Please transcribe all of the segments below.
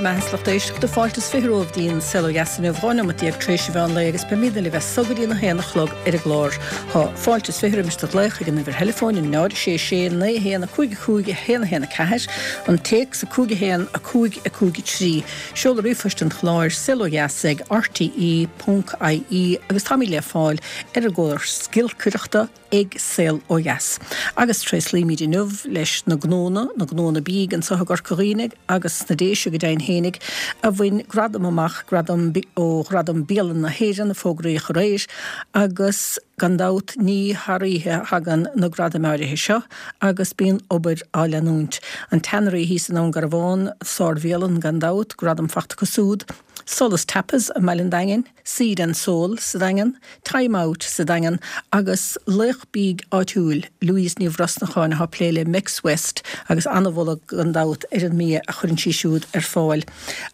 Bhur mbeatha is lucht éisteachta, fáilte is 20 romhaibh dtí'n Saol Ó Dheas inniu, 12 neomat tar éis an mheán lae agus beimidne libh as so go dtí an 1 a chlog ar an gclár. Tá fáilte is 20 roimis do ghlaoch ag an uimhir theileafóin, 0 6 6 9 1 5 5 1 1 4, an téacs 5 1 5 5 3, seoladh ríomhphoist an chláir, saolodheas ag rte ponc ie agus táimid le fáil ar an gcóras giolcaireachta, ag Saol Ó Dheas. Agus tréaslaímid inniu leis na gnónna, na gnónna bídh anseo i gCorca Dhuibhne agus sna Déise go deimhin fhéinig, a bhain gradam amach, gradam ó Ghradaim Bialanna na hÉireann a fógraíodh aréir, agus gan dabht ní thar oíche a thagann na gradaim áirithe seo agus bíonn obair á leanúint. An Tannery thíos i nDún Garbhán, sár-bhialann gan dabht, gradam fachta acu siúd. Solas Tapas i mBaile an Daingin. Seed and Soul sa Daingean, Time Out sa Daingean agus laoch bídh áitiúil, Louise Ní Bhrosnacháin atá ag plé le Mex West agus an-mholadh gan dabht ar an mbia a chuireann sí siúd ar fáil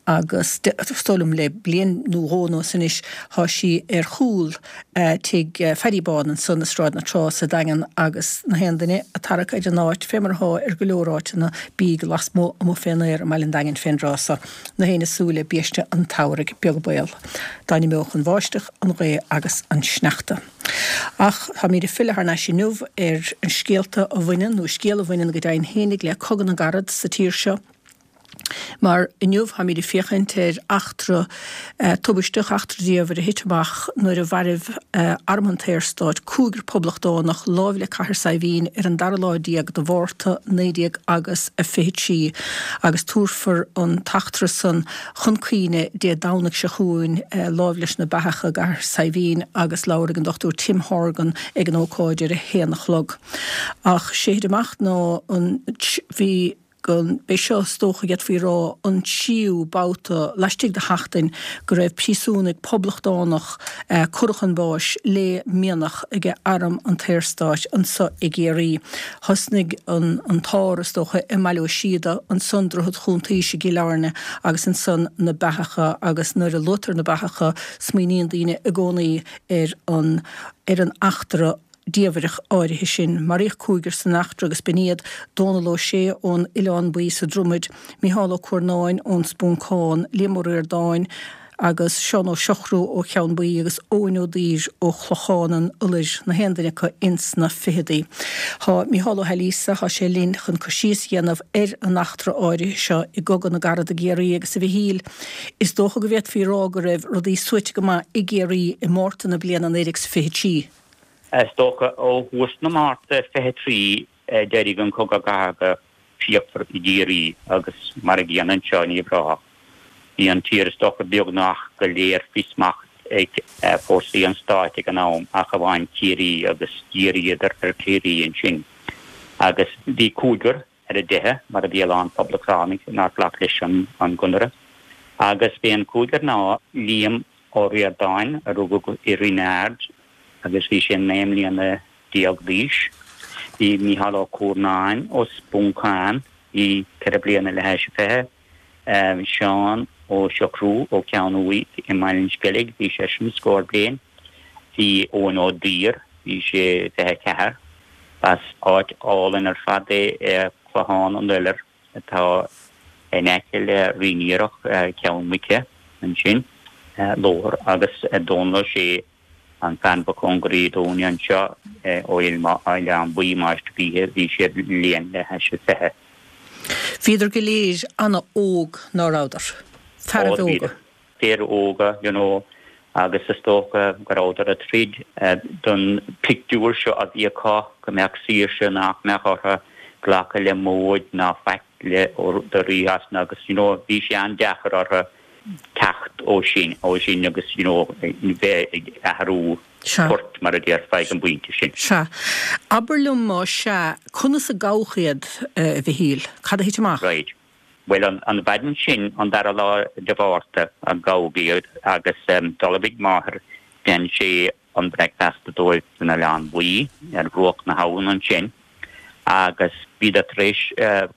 agus is dóigh liom le bliain nó dhó anuas anois tá sí ar chúl tigh Phaddy Bán ansan i Sráid na Trá sa Daingean agus na haon duine ag tarrac ar an áit fé mar atá ar go leor áiteanna bídh lasmuigh amuigh fén aer i mBaile an Daingin fén dtráth so. Na héinne ag súil le biaiste an tsamhraidh, beag baol dá n-imeodh an bháisteach, an ghaoth agus an sneachta. Ach táimid ag filleadh thar n-ais inniu ar an scéalta a bhaineann, nó scéal a bhaineann go deimhin fhéinig le Cogadh na gCarad sa tír seo. Mar inniu táimid ag féachaint ar eachtra tubaisteach, eachtra diamhair a thit amach nuair a mhairbh Arm an tSaorstáit cúigear poblachtánach láimh le Cathair Saidhbhín ar an dara lá déag de Mhárta 19 agus a 23 agus tabharfar an t-eachtra san chun cuimhne Dé Domhnaigh seo chugainn láimh leis na Beathacha i gCathair Saidhbhín agus labharfaidh an Dr Tim Horgan ag an ócáid ar a haon a chlog. Ach sé thit amach ná an bhí go mb'é seo, is dócha, d'fhéadfaí a rá, an tríú babhta laistigh de sheachtain go raibh príosúnaigh poblachtánach curtha chun báis le mianach ag Arm an tSaorstáit anso i gCiarraí. Thosnaigh an t-ár, is dócha, i mBaile Ó Síoda, ansan Droichead Chuntaois i gCill Airne agus ansan na Beathacha agus nuair a luaitear na Beathacha smaoiníonn daoine i gcónaí ar an ar an eachtra diamhrach áirithe sin. Maraíodh cúigear san eachtra agus b'in iad, Dónal Ó Sé ón Oileán Buí sa Dromaid, Micheál Ó Cuarnáin ón Spúncán, Liam Ó Ríordáin agus Seán Ó Siochrú ó Cheann Buí agus Eoin Ó Duibhir ó Chlochán an Iolair, na haon duine acu ins na ficheadaí. Tá Micheál Ó hAilíosa, tá sé linn chun cur síos a dhéanamh ar an eachtra áirithe seo i gCogadh na gCarad i gCiarraí agus a Mhichíl, is dócha go bhféadfaí a rá go raibh rudaí suaite go maith i gCiarraí i Márta na bliana 1923. Is dócha ó thús na Márta 23 d'éirigh an cogadh cathartha fíochmhar i gCiarraí agus mar a gcéanna anseo ní bhráthach. Bhí an tír is dócha beagnach go léir faoi smacht ag fórsaí an stáit ag an am ach amháin Ciarraí agus dhíríodar ar Chiarraí ansin agus bhí cúigear ar a dteitheadh mar a bhí a lán poblachtánaigh nár ghlac leis an gConradh agus b'é an cúigear ná Liam Ó Ríordáin a rugadh i Rinn Ard agus bhí sé 19 mbliana d'aois. Bhí Mícheál Ó Cuarnáin ó Spúncán, bhí ceithre bliana le hais a fiche. Seán Ó Siochrú ó Cheann Uaighe i mBaile an Sceilg, bhí seisean scór bliain. Bhí Eoin Ó Duibhir, bhí sé 24. B'as áit álainn ar fad é Clochán an Iolair atá in aice le Rinn Iarthach, Ceann Muice ansin, lóthar agus Dónal Ó Sé An fear ba chóngaraí dúinne anseo ó Oileán Buí, Máistir Gaoithe, bhí sé bliain le hais a fiche. Bhíodar go léir ana-óg, ná rabhadar? Fearaibh óga. Fir óga, you know, agus is dócha go rabhadar ag troid don pictiúr seo a bhí acu, go mbeadh saoirse, nach mbeadh orthu glacadh le móid ná faic le do Rí Shasana agus, you know, bhí sé an-deacair orthu. teacht ó sin, ó sin agus you know bheith ag athrú poirt mar a déarfá ag an bpointe sin. Sea. Abair liom más ea, conas a gabhadh iad, a Mhichíl? Cad a thit amach? Right. Bhuel an mhaidin sin, an dara lá de Mhárta, a gabhadh iad agus d'ullmhaigh máthair Dan Shea an breicfeasta dóibh san Oileán Buí ar bhruach na habhann ansin agus bhíodar tar éis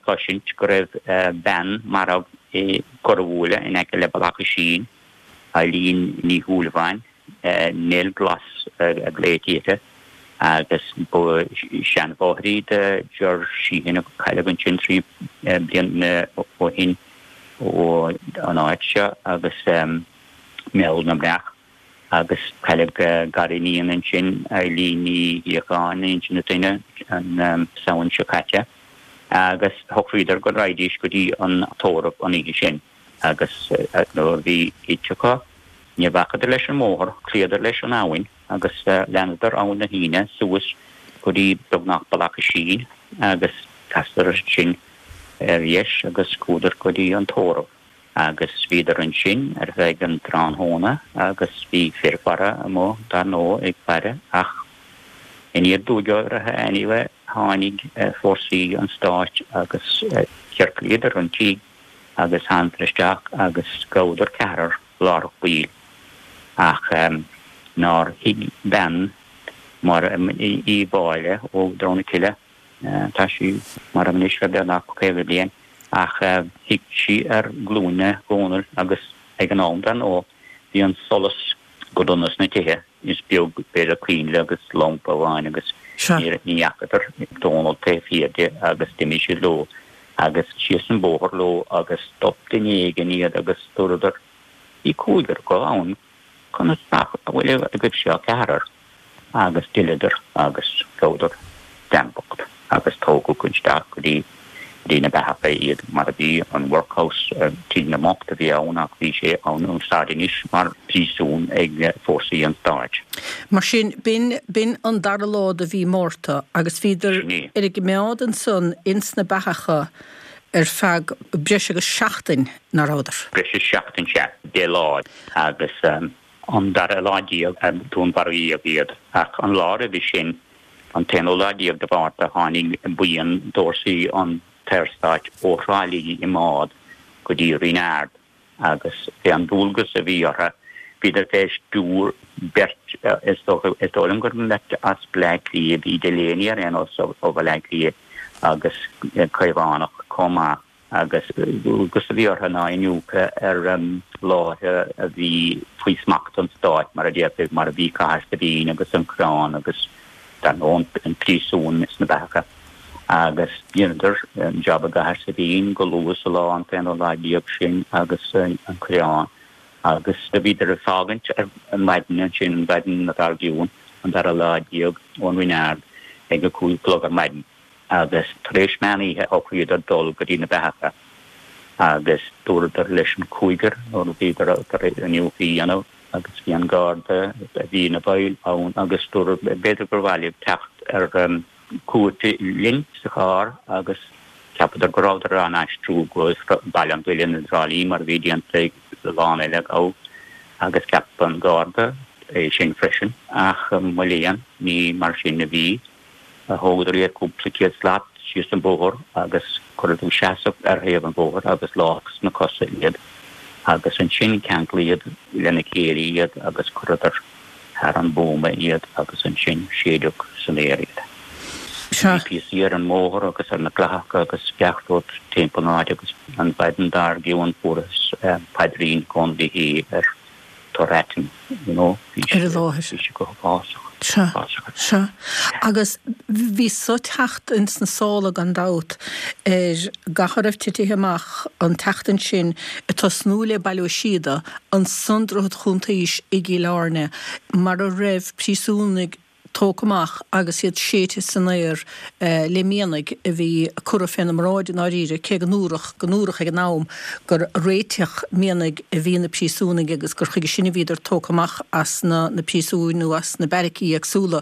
cloisint go raibh bean marbh i gCorrbhuaile in aice le Bealach Oisín, Eileen Ní Shúilleabháin, Nell Glas a ghlaoití uirthi, agus ba seanmháthair í do Ger Sheehan a cailleadh ansin 3 bliana ó shin. ó an áit seo agus Meall na mBreac agus cailleadh gariníon ansin, Eilín Ní Shíocháin, Inse na Toinne, an Samhain seo caite agus shocraíodar go raghaidís go dtí an tórramh an oíche sin agus nuair a bhí ite acu ní bhacadar leis an mbóthar, chloíodar leis an abhainn agus leanadar Abhainn na hUíne suas go dtí beagnach Bealach Oisín agus chasadar ansin ar dheis agus chuadar go dtí an tórramh. Agus bhíodar ansin ar feadh an tráthnóna agus bhí fir faire amuigh dar ndóigh ag faire ach aniar aduaidh orthu anyway tháinig fórsaí an stáit agus chiorclaíodar an tigh agus thánadar isteach agus ghabhadar ceathrar láithreach baill ach nár shuigh bean Máire Uí Mháille ó Drom na Cille Tá sí marbh anois le beagnach 50 bliain ach shuigh sí ar ghlúine Dhónaill agus ag an am, dar ndóigh, bhí an solas go dona sna tithe, is beag b'fhéidir coinnle agus lampa amháin agus ní fhacadar Dónall taobh thiar di agus d'imigh siad leo agus síos an bóthar leo agus stop duine éigin iad agus dúradar, bhí cúigear acu ann. Conas nach bhfuil agaibhse ach ceathrar? Agus d'fhilleadar agus ghabhadar dream bocht agus tógadh isteach go dtí dtí na beathacha iad mar a bhí an workhouse, tigh na mbocht a bhí ann ach bhí sé in úsáid anois mar phríosún ag fórsaí an stáit. Mar sin, b'in, b'in an dara lá de mhí Márta agus bhíodar ar a gcimeád ansan ins na beathacha ar feadh breis agus seachtain, ná rabhadar? Breis is seachtain, sea, 10 lá. Agus an dara lá déag a dúnmharaíodh iad. Ach an lá roimhe sin, an t-aonú lá déag de Mhárta, tháinig buíon d'fhórsaí an tSaorstáit ó Thrá Lí i mbád go dtí Rinn Ard agus b'é an dualgas a bhí orthu, bhíodar fé stiúir beirt, is dócha, is dóigh liom gur mbeirt as Bleá Cliath, bhí Delaney ar aon nós ó Bhaile Átha Cliath agus Caomhánach chomh maith. agus dualgas a bhí orthu ná iniúchadh ar láithre a bhí faoi smacht an stáit, mar a déarfaí, mar a bhí Cathair Saidhbhín agus an Coireán agus, dar ndóigh, an príosún sna Beathacha. Agus dheineadar an jab i gCathair Saidhbhín go luath sa lá, an t-aonú lá déag sin, agus an Coireán. Agus do bhíodar ag fágaint ar maidin ansin, an mhaidin dár gcionn, an dara lá déag, ón Rinn Ard ag a 5 a chlog ar maidin. agus tar éis meán oíche shocraíodar dul go dtí na beathacha agus dúradar leis an cúigear nuair a bhíodar tar éis iniúchadh a dhéanamh agus bhí an garda a bhí ina bhfeighil ann agus dúradh b'fhéidir gur mhaith libh teacht ar cuairt linn sa charr agus cheapadar go rabhadar á n-aistriú go Baile an Bhuilinn i dTrá Lí mar a bhí déanta ag a lán eile a gabhadh agus cheap an garda é sin freisin ach mo léan ní mar sin a bhí. Thógadar iad cúpla céad slat síos an bóthar agus cuireadar i seasamh ar thaobh an bhóthair agus lámhach sna cosa iad agus ansin ceanglaíodh lena chéile iad agus chuireadar thar an bhuama iad agus ansin séideadh san aer iad. Bhí píosaí ar an mbóthar agus ar na clathacha agus gach rud timpeall an áit agus an mhaidin dár gcionn fuarthas paidrín Dhónaill Uí Shé ar tor aitinn, you know, bhí sé, bhí sé go huafásach, Sea, uafásach. sea. Agus bhí so ag teacht ins na sála gan dabht ar gach a raibh titithe amach an tseachtain sin ag tosnú le Baile Ó Síoda, ansan Droichead Chuntaois i gCill Airne mar a raibh príosúnaigh tógtha amach agus iad séidte san aer le mianaigh a bhí curtha féna mbráid i ndáiríre, cé go ndúradh go ndúradh ag an am gur réiteach mianaigh a bhí na príosúnaigh agus gur chuige sin a bhíodar tógtha amach as na na príosúin nó as na beairicí éagsúla.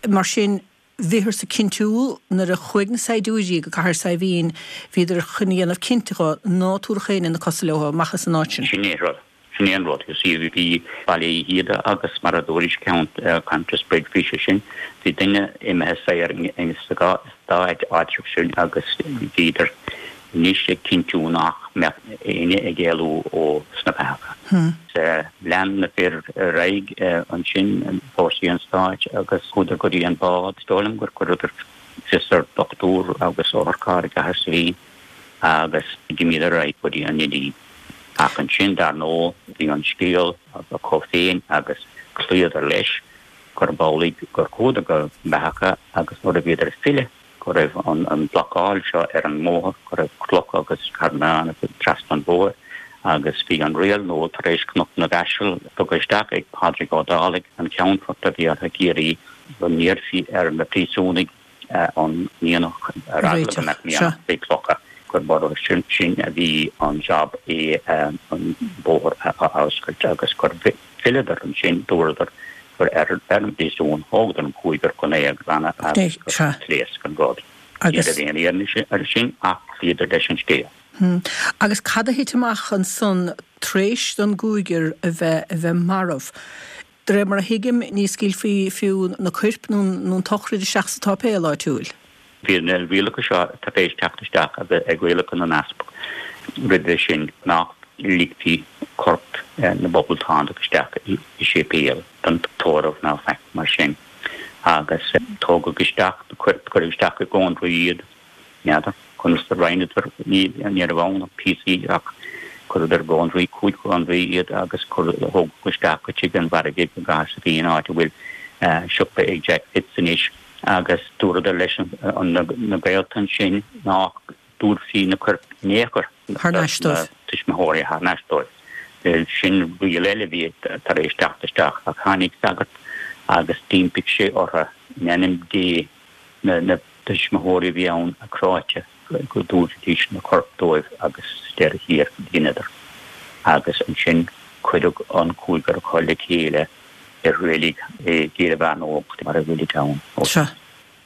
Mar sin, bhíothas ag cinntiú nuair a chuaigh na saighdiúirí go Cathair Saidhbhín, bhíodar chun a dhéanamh cinnte dho ná tabharfadh éinne na cosa leo amach as an áit sin. Sin é an rud. Sin é an rud. You see, bhí Baile Uí Shíoda agus mar a dúraís Countessbridge, bhí sé sin, bhí duine imithe saor sa dá áitreabh sin agus bhíodar anois ag cinntiú nach mbeadh éinne ag éalú ó sna beathacha. Lean na fir ar aghaidh ansin, fórsaí an stáit, agus chuadar go dtí an bád. Is dóigh liom gur chuireadar fios ar dhochtúir agus otharcharr i gCathair Saidhbhín agus d'imíodar ar aghaidh go dtí an Neidín. Ach ansin, dar ndóigh, bhí an scéal acu féin agus chloíodar leis gurb amhlaidh gur chuadar go Beathacha agus nuair a bhíodar ag filleadh. go raibh an blocáil seo ar an mbóthar, go raibh clocha agus carnáin trasna an bhóthair agus bhí an riail nua tar éis Cnoc na gCaiseal tugtha isteach ag Pádraig Ó Dálaigh, an Ceannfort a bhí i gCiarraí, go n-iarrfaí ar na príosúnaigh an mianach ar eagla go mbeadh mianach faoi chlocha, gurb orthu sin a bhí an jab é an bóthar a oscailt agus gur fhilleadar ansin, dúradar gur ar an bpríosún, thógadar an cúigear chun é a ghlanadh agus gur phléasc an rud. Ní raibh aon fhianaise air sin ach chloíodar leis an scéal. Agus cad a thit amach ansan tar éis don gcúigear a bheith a bheith marbh? De réir mar a thuigim, ní scaoilfí fiú na coirp nó an tsochraid isteach sa tsáipéal áitiúil. Bhí na rialacha seo tar éis teacht isteach ag rialacha na n-easpag roimhe sin nach ligfí corp na bPoblachtánach isteach i séipéal don tórramh ná faic mar sin agus tógadh isteach na coirp, cuireadh isteach i gcónraí iad. N'fheadar conas a roinneadar, ní raibh ann ach píosaí ach chuireadar i gcónraí, chúig chónraí iad agus thógadh isteach go tigh an mhargaidh i gCathair Saidhbhín, áit a bhfuil siopa ag Jack Fitz anois, agus dúradar leis na gaolta ansin nach dtabharfaí na coirp in aon chor do na tuismitheoirí thar n-ais dóibh. Sin riail eile a bhí tar éis teacht isteach ach tháinig sagart agus d'impigh sé orthu in ainm Dé na tuismitheoirí a bhí ann cráite go dtabharfaidís na coirp dóibh agus sa deireadh thiar dheineadar. Agus ansin cuireadh an cúigear acu le chéile i reilig i gCill Mheánóg mar a bhfuilid ann ó shin. Sea,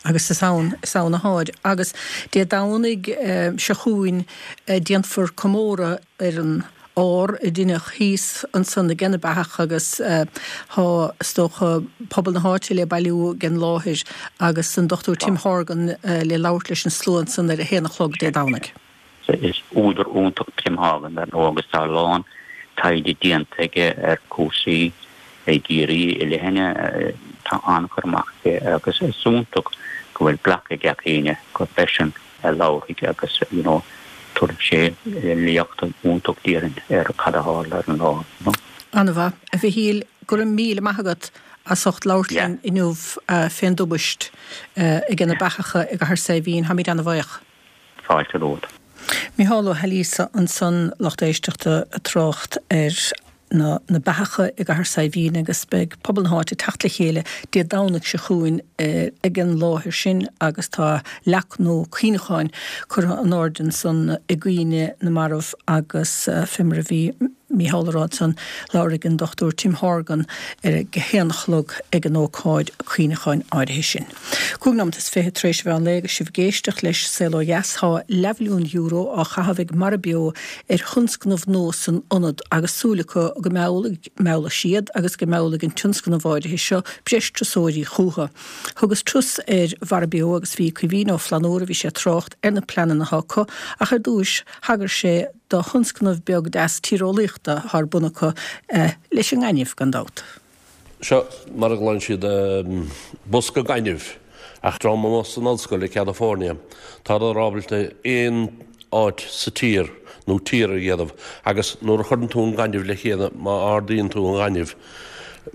agus is ann, is ann atáid. Agus Dé Domhnaigh seo chugainn déanfar comóradh ar an ár a deineadh thíos ansan age na beathach agus tá, is dócha, pobal na háite le bailiú ag an láthair agus an Dr Tim Horgan le labhairt leis an slua ansan ar a haon a chlog Dé Domhnaigh. Is údar iontach Tim Horgan dar ndóigh agus tá a lán taighde déanta aige ar chúrsaí i gCiarraí i leithne. Tá an-chur amach aige agus is iontach go bhfuil glactha ag gach éinne gurb eisean a labharfaidh agus you know tabharfaidh sé léacht iontach déarfainn ar cad a tharla ar an lá you know. An-mhaith. A Mhichíl, go raibh míle maith agat as ucht labhairt linn inniu fén dtubaist age na beathacha i gCathair Saidhbhín. Táimid an-bhaoch. Fáilte romhat. Micheál Ó hAilíosa ansan, lucht éisteachta, ag trácht ar na na beathacha i gCathair Saidhbhín agus beidh pobal na háite ag teacht le chéile Dé Domhnaigh seo chugainn ag an láthair sin agus tá leac nua cuimhneacháin curtha in airde ansan i gcuimhne na marbh agus fé mar a bhí Mícheál a rá ansan labharfaidh an Dr Tim Horgan ar a haon a chlog ag an ócáid cuimhneacháin áirithe sin. 25 nóimeat tar éis an mheán lae agus sibh ag éisteacht leis Saol Ó Dheas tá leathmhilliún euro á chaitheamh ag Mara Beo ar thionscnamh nua san ionad agus súil acu go meallfaidh siad agus go meallfaidh an tionscnamh áirithe seo breis turasóirí chucu. Thugas turas ar Mhara Beo agus bhí Caoimhín Ó Flannúra, bhí sé ag trácht ar na pleananna atá acu ach ar dtúis thagair sé do thionscnamh beag deas tíreolaíochta atá ar bun acu leis an ngaineamh, gan dabht. Seo mar a ghlaonn siad bosca gainimh ach dream amuigh san ollscoil ag California tádar ábalta aon áit sa tír nó tír a dhéanamh agus nuair a chuireann tú an gaineamh le chéile má ardaíonn tú an gaineamh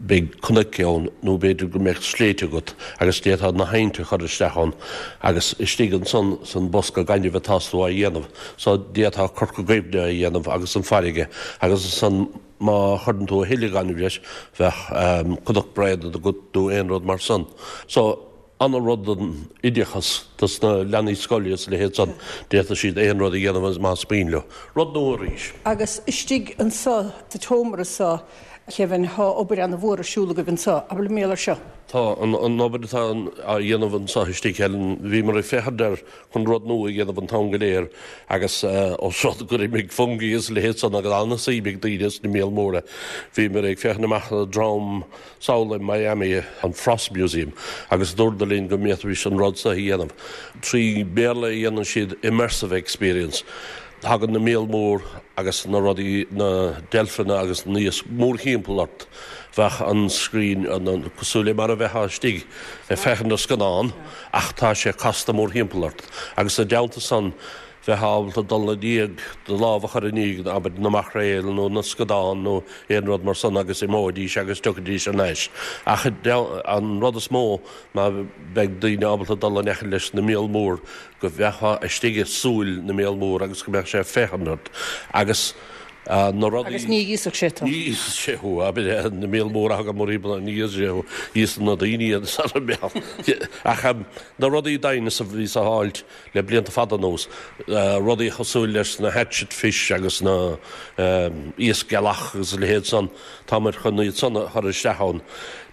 beidh cnoic ann nó b'fhéidir go mbeadh sléibhte agat agus d'fhéadfá na hainte a chur isteach ann agus istigh ansan san bosca gainimh atás tú á dhéanamh so d'fhéadfá Corca Dhuibhne a dhéanamh agus an farraige agus ansan Má chuireann tú a thuilleadh gainimh leis, bheadh Cnoc Bréanainn agat nó aon rud mar san. So, ana rud don oideachas dos na leanaí scoile is a leithéid san. D'fhéadfadh siad aon rud a dhéanamh más mian leo. Rud nua arís. Agus istigh anso sa tseomra so, a Kevin, thá obair ana mhór ar siúl agaibh anso. Abair liom mar gheall air seo. Tá, an obair atá á dhéanamh anso istigh, Helen, bhíomar ag féachaint ar chun rud nua a dhéanamh an t-am go léir agus os rud gur imigh fungi is a leithéid san agus an-suim ag daoine sna míol móra. Bhíomar ag féachaint amach le dream sall i Miami, an Frost Museum, agus dúradar linn go bhféadfaimis an rud seo a dhéanamh. Trí Bhéarla a dhéanann siad immersive experience. Tagann na míol mór agus na rudaí, na deilfeanna agus na iasc mórthimpeall ort. Bheadh an screen cosúil le mar a bheifeá istigh ag féachaint ar scannán. Ach tá sé casta mórthimpeall ort. Agus i dteannta san, bheith ábalta dul i ndiaidh, do lámh a chur i ndiaidh, abair, na maicréal nó na scadán nó aon rud mar san agus imeoidís agus tiocfaidís thar n-ais. Ach an rud is mó ná beidh daoine ábalta dul in aice leis na míol mór, go mbeifeá istigh i súil na míol mór agus go mbeadh sé ag féachaint ort agus na rudaí. Agus ní íosfadh sé tú. Ní íosfadh sé thú, abair, na míol mór a thagann mórthimpeall, ní íosfadh sé thú, íosann na daoine iad sara mbeadh. Ach na rudaí dinosaur a bhí á fháilt le blianta fada anuas, rudaí cosúil leis na hatchet fish agus na iasc gealach agus a leithéid san, táimid chun iad san a chur isteach ann.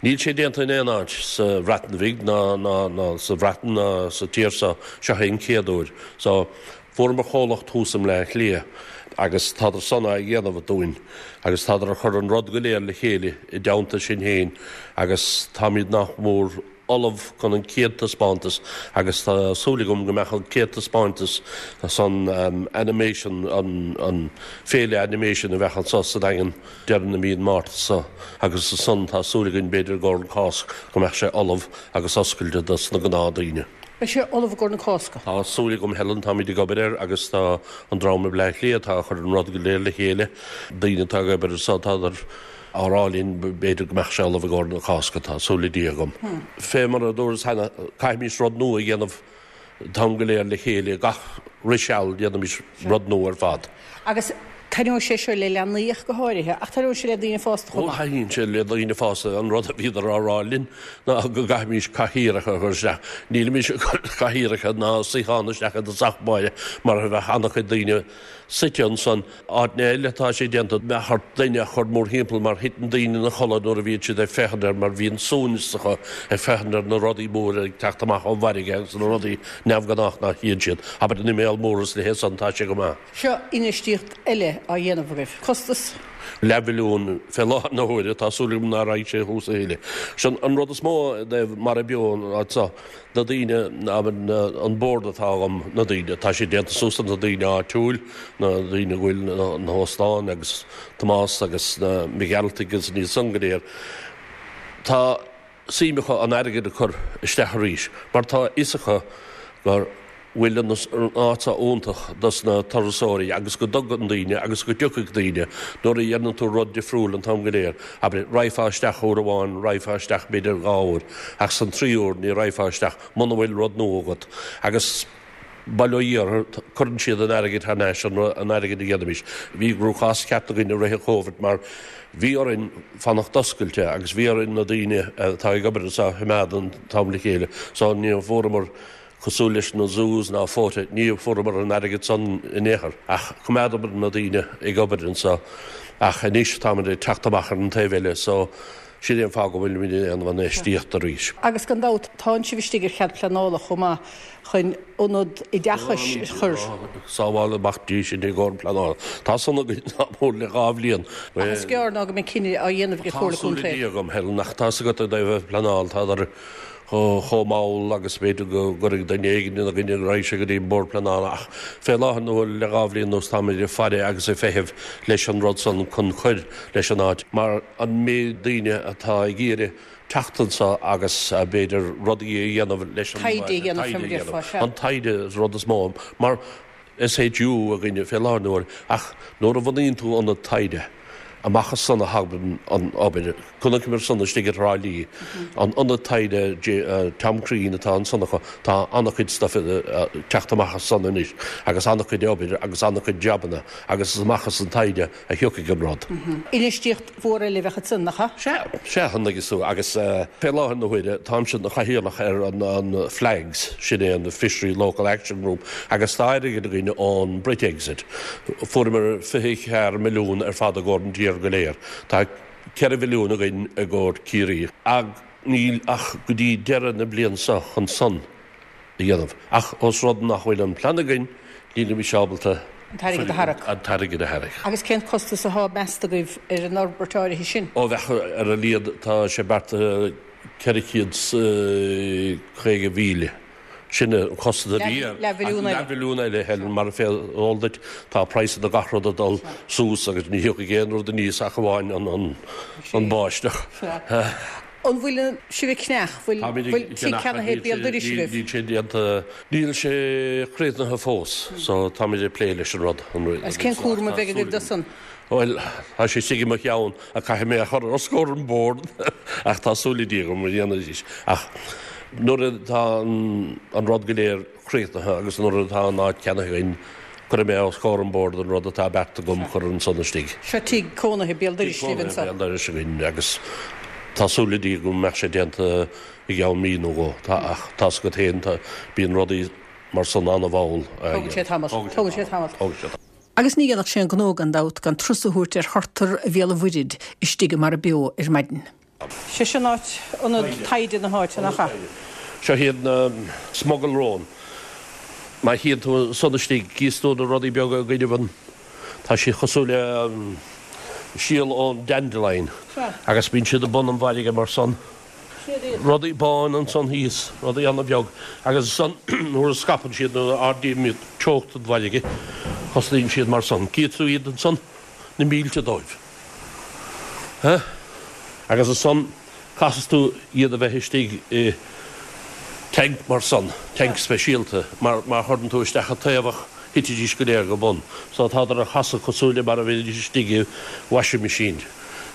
Níl sé déanta in aon áit sa Bhreatain Bhig ná ná sa Bhreatain ná sa tír seo, seo é an chéad uair. So. Fuaireamar comhlacht thuas i mBleá Cliath agus tádar san á dhéanamh dúinn agus tádar ag cur an rud go léir le chéile i dteannta sinn féin agus táimid nach mór ullamh chun an chéad taispeántas agus tá súil agam go mbeadh an chéad taispeántas san animation, an féile animation a bheadh anso sa Daingean deireadh na mí an Márta seo agus ansan tá súil againn b'fhéidir i gcomhair an Cásc go mbeadh sé ullamh agus oscailte dos na gnáth daoine. Beidh sé ullamh i gcomhair na Cásca. Tá súil agam Helen, táimid ag obair air agus tá an dream i mBleá Cliath atá ag cur an rud go léir le chéile, daoine atá ag obair anso, tádar á rá linn b'fhéidir go mbeadh sé ullamh i gcomhair na Cásca, tá súil le Dia agam. Fé mar a dúras cheana, caithfimis rud nua a dhéanamh an t-am go léir le chéile, gach re seal déanaimis rud nua ar fad. Agus taitneoidh sé seo le leanaí ach go háirithe, ach taitneoidh sé le daoine fásta chomh maith. Ó, taitníonn sé le daoine fásta. An rud a bhíodar á rá linn ná go gcaithfimis cathaoireacha a chur isteach. Nílimis ag cur cathaoireacha ná suíocháin isteach i dtosach báire mar bheadh an-chuid daoine suite ansan. Áiteanna eile atá sé déanta, bheadh ort duine a chur mórthimpeall mar thiteann daoine ina chodladh nuair a bhíonn siad ag féachaint air mar bhíonn suaimhneas acu ag féachaint ar na rudaí móra ag teacht amach ón bhfarraige agus na rudaí neamhghnách nach tchíonn siad. Abair na míol mór is a leithéid san, tá sé go maith. Seo infheistíocht eile á dhéanamh agaibh. Costas? Leathmhilliún fé láthair na huaire. Tá súil agam ná raghaidh sé thuas a thuilleadh. Sin an rud is mó i dtaobh Mara Beo an áit seo. Na daoine, an bord atá agam, na daoine, tá sé déanta suas de na daoine áitiúil, na daoine a bhfuil na hóstáin agus Tomás agus na Mac Gearaltaigh agus iad san go léir. Tá suim acu an airgead a chur isteach arís mar tá a fhios acu go bhfuil an áit seo iontach dos na turasóirí agus go dtugann daoine agus go dtiocfaidh daoine nuair a dhéanann tú rud difriúil an t-am go léir. Abair, raghfá isteach uair amháin, raghfá isteach b'fhéidir dhá uair ach san tríú uair ní raghfá isteach muna bhfuil rud nua agat agus bail ó Dhia orthu, cuireann siad an airgead thar n-ais, an airgead a dhéanaimis. Bhí cruachás ceart againn i rith an Chóibhid mar bhí orainn fanacht oscailte agus bhí orainn na daoine atá ag obair anseo a choimeád an t-am le chéile so ní fuaireamar cosúil leis na zoos ná Fota, ní fuaireamar an airgead san in aon chor ach choimeádamar na daoine ag obair anseo ach anois táimid ag teacht amach ar an taobh eile so sin é an fáth go bhfuilimid ag déanamh an infheistíocht arís. Agus gan dabht tánn sibh istigh ar chead pleanála chomh maith chun ionad oideachais a chur. Sábháil amach Dia sinn i gcomhair an pleanála. Tá san againn nach mór le dhá bhliain. Ach is gearr ná go mbeidh cinneadh á dhéanamh ag an Chomhairle Contae. Tá súil le Dia agam, Helen, ach tá's agat i dtaobh an phleanáil, tádar chomh mall agus b'fhéidir go gcuirfidh duine éigin ina gcoinne go raghaidh sé go dtí an Bord Pleanála ach fé láthair na huaire le dhá bhliain anuas táimid ag faire agus ag feitheamh leis an rud san chun cur leis an áit mar an méid daoine atá ag iarraidh teacht anseo agus b'fhéidir rudaí a dhéanamh leis an Taighde a dhéanamh, fé mar a déarfá, sea. An taighde is rud is mó mar SHU againne fé láthair na huaire ach nuair a bhunaíonn tú ionad taighde, amach as san a thagann an obair. Chonaiceamar san istigh i dTrá Lí, an ionad taighde Tom Crean atá ansan acu, tá an-chuid stuif ag teacht amach as san anois agus an-chuid obair agus an-chuid jabanna agus is amach as an taighde a thiocfaidh an rud. Infheistíocht mhór eile a bheadh ansan, nach ea? Sea, sea, an dtuigeann tú, agus fé láthair na huaire, táimse ina chathaoirleach ar an FLAGS, sin é an Fishery Local Action Group, agus tá airgead againn ón Brexit. Fuaireamar 24 milliún ar fad i gcomhair an tír go léir. Tá 4 mhilliún againn i gcomhair Ciarraí. Ach níl ach go dtí deireadh na bliana seo chun san a dhéanamh. Ach ós rud nach bhfuil an plean againn, nílimís ábalta An t-airgead a tharrac. An t-airgead a tharrac. Agus cén costas athá measta agaibh ar an fhorbairt áirithe sin? Ó bheadh ar a laghad, tá sé beartaithe 450,000. Sin an costas a bhí air. Leathmhilliún eile. Leathmhilliún eile, Helen, mar fé eol duit, tá praghsanna gach rud ag dul suas agus ní thiocfaidh aon rud aníos ach amháin an báisteach. Sea. An bhfuil sibh ag ceannach, bhfuil tigh ceannaithe béal dorais agaibh? Níl sé déanta, níl sé críochnaithe fós, so táimid ag plé leis an rud. Agus cén cúram a bheidh agaibh dó san? Bhuel, tá sé istigh i mo cheann ach caithfidh mé a chur os comhair an bord ach tá súil le Dia agam go ndéanfaidís. Ach nuair atá an rud go léir críochnaithe agus nuair atá an áit ceannaithe againn, cuirfidh mé os comhair an bhoird an rud atá beartaithe agam chur ansan istigh. Seo tigh cónaithe béal dorais libh anso. Tigh cónaithe béal dorais againn agus tá súil le Dia go mbeadh sé déanta i gceann mí nó dhó. Tá, ach tá's agat féin, tá, bíonn rudaí mar san an-mhall. Tógann sé tamall. Tógann sé tamall. Tógann sé tamall. Agus ní dhéanfadh sé an gnó gan dabht gan turas a thabhairt ar thurtar Bhéal an Mhuirthead istigh i Mara Beo ar maidin. Sé sin áit, ionad taighde na háite, nach ea? Seo iad na smuggle róin. Má théann tú ansan istigh, gíos tú na rudaí beaga i gcoinnibh an, tá siad cosúil le síol ón dandelion agus bíonn siad i bun an bhfarraige mar san. Rudaí báin ansan thíos, rudaí ana-bheag agus ansan nuair a scaipeann siad, nuair a ardaíonn teocht an bhfarraige, thosnaíonn siad mar san. Gíos tú iad ansan, na mílte dóibh. Agus ansan caithfidh tú iad a bheith istigh i tank mar san, tank speisialta, mar má chuireann tú isteach an taobhach thitfidís go léir go bun. So tádar a chasadh cosúil le mar a bheidís istigh i washing machine,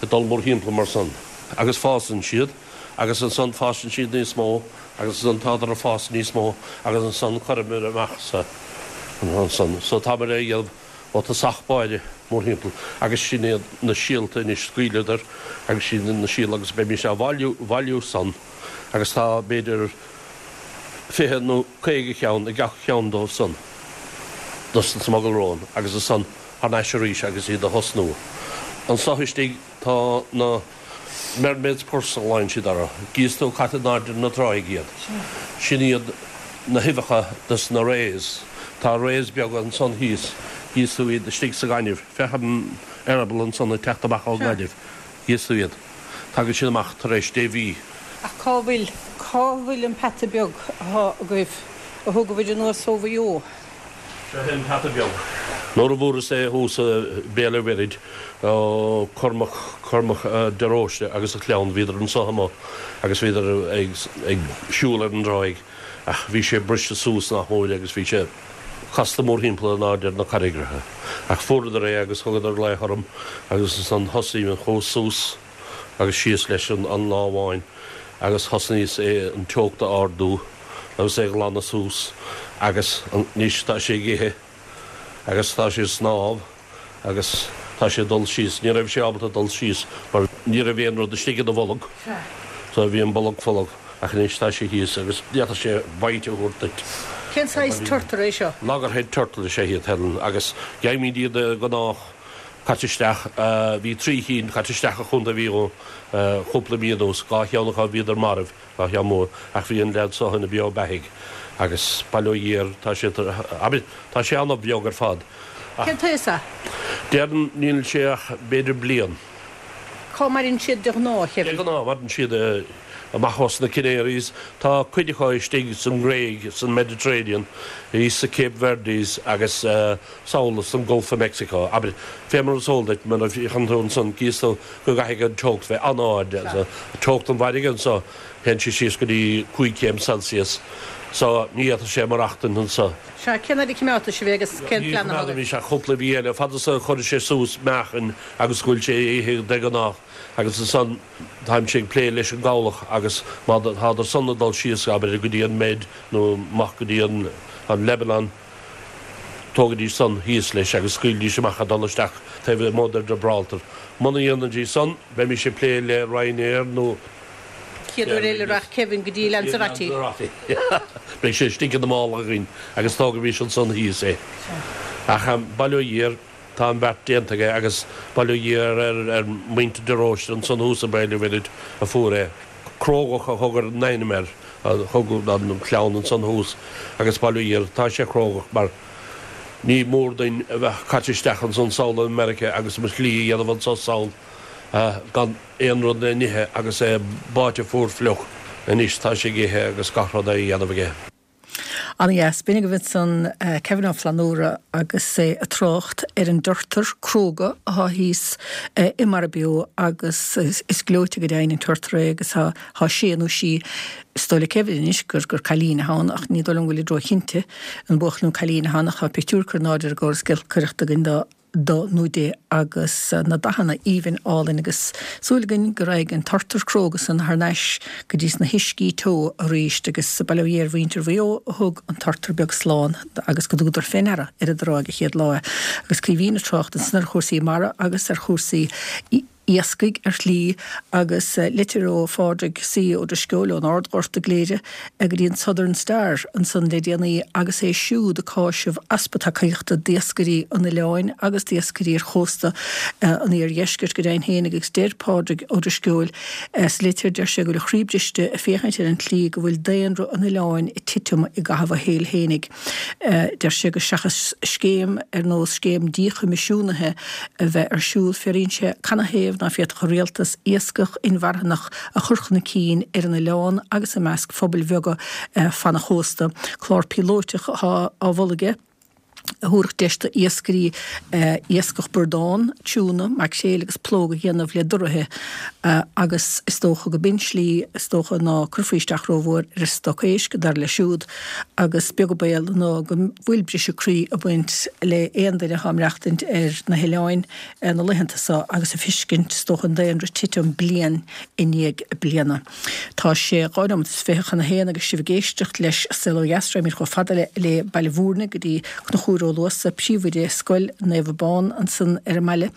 ag dul mórthimpeall mar san. Agus fásann siad, agus ansan fásann siad níos mó, agus ansan tádar ag fás níos mó, agus ansan cuirimid amach sa, ansan. So táimid a dhéanamh. Ó tosach báire, mórthimpeall, agus sin iad na síolta anois, scaoileadar agus sin iad na síolta agus beimís á bhailiú, bhailiú san agus tá b'fhéidir 20 nó 50 ceann i gach ceann dóibh san, dos na smuggle róin agus ansan thar n-ais arís agus iad a thosnú. Anso istigh tá na. Mermaid's purse a ghlaonn siad orthu. Gíos tú caite in airde na tráigh iad. Sin iad na huibheacha dos na rays. Tá rays beaga ansan thíos, gíos tú iad istigh sa ghaineamh. Féach an eireaball ansan ag teacht amach ón ngaineamh. Gíos tú iad. Tagann siad amach tar éis dé mhí. Ach cá bhfuil, cá bhfuil an peata beag athá agaibh, a thógabhair anuas ó Mhaigh Eo? Seo é an peata beag. Nuair a bhfuaireas é thuas i Béal a' Mhuirthid ó Cormac, Cormac de Róiste agus a chlann, bhíodar anso amuigh agus bhíodar ag, ag siúl ar an dtráigh ach bhí sé briste suas nach mór agus bhí sé casta mórthimpeall in airde ar na carraigreacha. Ach fuaireadar é agus thugadar glaoch orm agus ansan thosaigh mé, chuas suas. agus síos leis an lá amháin agus thosnaíos é an teocht a ardú agus é a ghlanadh suas agus anois tá sé ag ithe agus tá sé ag snámh agus tá sé ag dul síos. Ní raibh sé ábalta dul síos mar ní raibh aon rud istigh ina bholg so bhí an bolg folamh ach anois tá sé thíos agus d'fhéadfadh sé bite a thabhairt duit. Cén saghas turtar é seo? Loggerhead turtle is ea iad, Helen, agus gheibhimid iad de ghnáth. Caite isteach, bhí trí chinn caite isteach i Chontae Mhaigh Eo cúpla mí anuas, dhá cheann acu bhíodar marbh, dhá cheann mór, ach bhí an leaid so ina beo beathaigh agus bail ó Dhia air, tá sé, abair, tá sé an-bheag ar fad ach. Cén t-aois é? Déarfainn níl sé ach b'fhéidir bliain. Cá maireann siad de ghnáth, a Kevin? De ghnáth maireann siad amach os na Canaries. Tá cuid acu istigh san nGréig, san Mediterranean, thíos sa Cape Verdes agus sall san Gulf of Mexico. Abair, fé mar is eol duit, mar a fhéachann tú ansan, gíos tú go gcaithfidh an teocht bheith an-ard. Teocht an bhfarraige anso, théann sí síos go dtí 5 chéim Celsius. So, ní fhéadfadh sé maireachtaint anso. Sea, cén fhad a choimeádfaidh sibh é agus cén plean atá agaibh? Ní choimeádfaimis ach cúpla mhí eile, fad is a chuireann sé suas meáchain agus go bhfuil sé ag ithe de ghnáth agus ansan táimse ag plé leis an gcabhlach agus má tádar san ag dul síos, abair, go dtí an Med nó amach go dtí an Lebanon, Tógaidís san thíos leis agus scaoilidís amach ag dul isteach taobh amuigh de Gibraltar. Muna ndéanaidís san, bheimís ag plé le Ryanair nó. Chéad uair eile rachaidh Kevin go dtí Lanzarote. Lanzarote. Beidh sé istigh ina mála againn agus tógaimis ansan thíos é. Ach bail ó Dhia air, tá an beart déanta aige agus bail ó Dhia ar ar muintir de Róiste ansan thuas i Béal an Mhuirthead a fuair é. Crógach a thug an ainm air, a thug an chlann ansan thuas agus bail ó Dhia air, tá sé crógach mar ní mór duinn a bheith caite isteach ansan sall i Meiriceá agus mo shlí a dhéanamh anso sall gan aon rud le n-ithe agus é báite fuar fliuch. Anois tá sé ag ithe agus gach rud á dhéanamh aige. Ana-dheas. B'in agaibh ansan Kevin Ó Flannúra agus é ag trácht ar an dturtar cróga athá thíos i Mara Beo agus is gleoite go deimhin an turtar é agus tá sé nó sí, is dóigh le Kevin anois gur gur cailín athá ann ach ní dóigh liom go bhfuilid ró-chinnte an buachaill nó cailín athá ann ach tá pictiúr curtha in airde ar an gcóras giolcaireachta againn do do nó di agus na dathanna aoibhinn álainn agus súil againn go raghaidh an turtar cróga san thar n-ais go dtí sna huiscí teo arís agus bail ó Dhia ar mhuintir Mhaigh Eo a thug an turtar beag slán agus go dtugadar fé ndeara ar an dtráigh an chéad lá é. Agus Caoimhín ag trácht ansan ar chúrsaí mara agus ar chúrsaí iascaigh ar shlí agus litir ó Phádraig C. Ó Drisceoil ón Ardghort i gCléire go dtí an Southern Star ansan le déanaí agus é siúd ag cáiseamh easpa tacaíochta d'iascairí an oileáin agus d'iascairí ar chósta an iardheiscirt go deimhin féin agus deir Pádraig Ó Drisceoil sa litir, deir sé go bhfuil a chroí briste ag féachaint ar an tslí go bhfuil daonra an oileáin ag titim i gcaitheamh a shaoil fhéinig. Deir sé go seachas scéim ar nós scéim díchoimisiúnaithe a bheith ar siúl, fiafraíonn sé canathaobh ná féadfadh an rialtas iascach inmharthanach a chur chun cinn ar an oileán agus i measc phobail bheaga fan an chósta. Clár píolóiteach atá á mholadh aige a thabharfadh deis d'iascairí iascach bradán, tiúna, maicréil agus plóg a dhéanamh le doruithe agus is dócha go b'in slí is dócha ná cuirfí isteach rómhór ar an stoc éisc, dar leis siúd. Agus beag an baol ná go bhfuil briseadh croí ag baint le aon duine atá ag maireachtaint ar na hoileáin na laethanta seo agus ag fiscint, is dócha, an daonra titim bliain i ndiaidh bliana. Tá sé 2 nóiméad is 20 chun a haon agus sibh ag éisteacht leis Saol Ó Dheas. Raghaimid chomh fada le Baile Bhúirne go dtí Conchúr Ó Luasa, príomhoide Scoil Naomh Abán ansan ar an mbaile.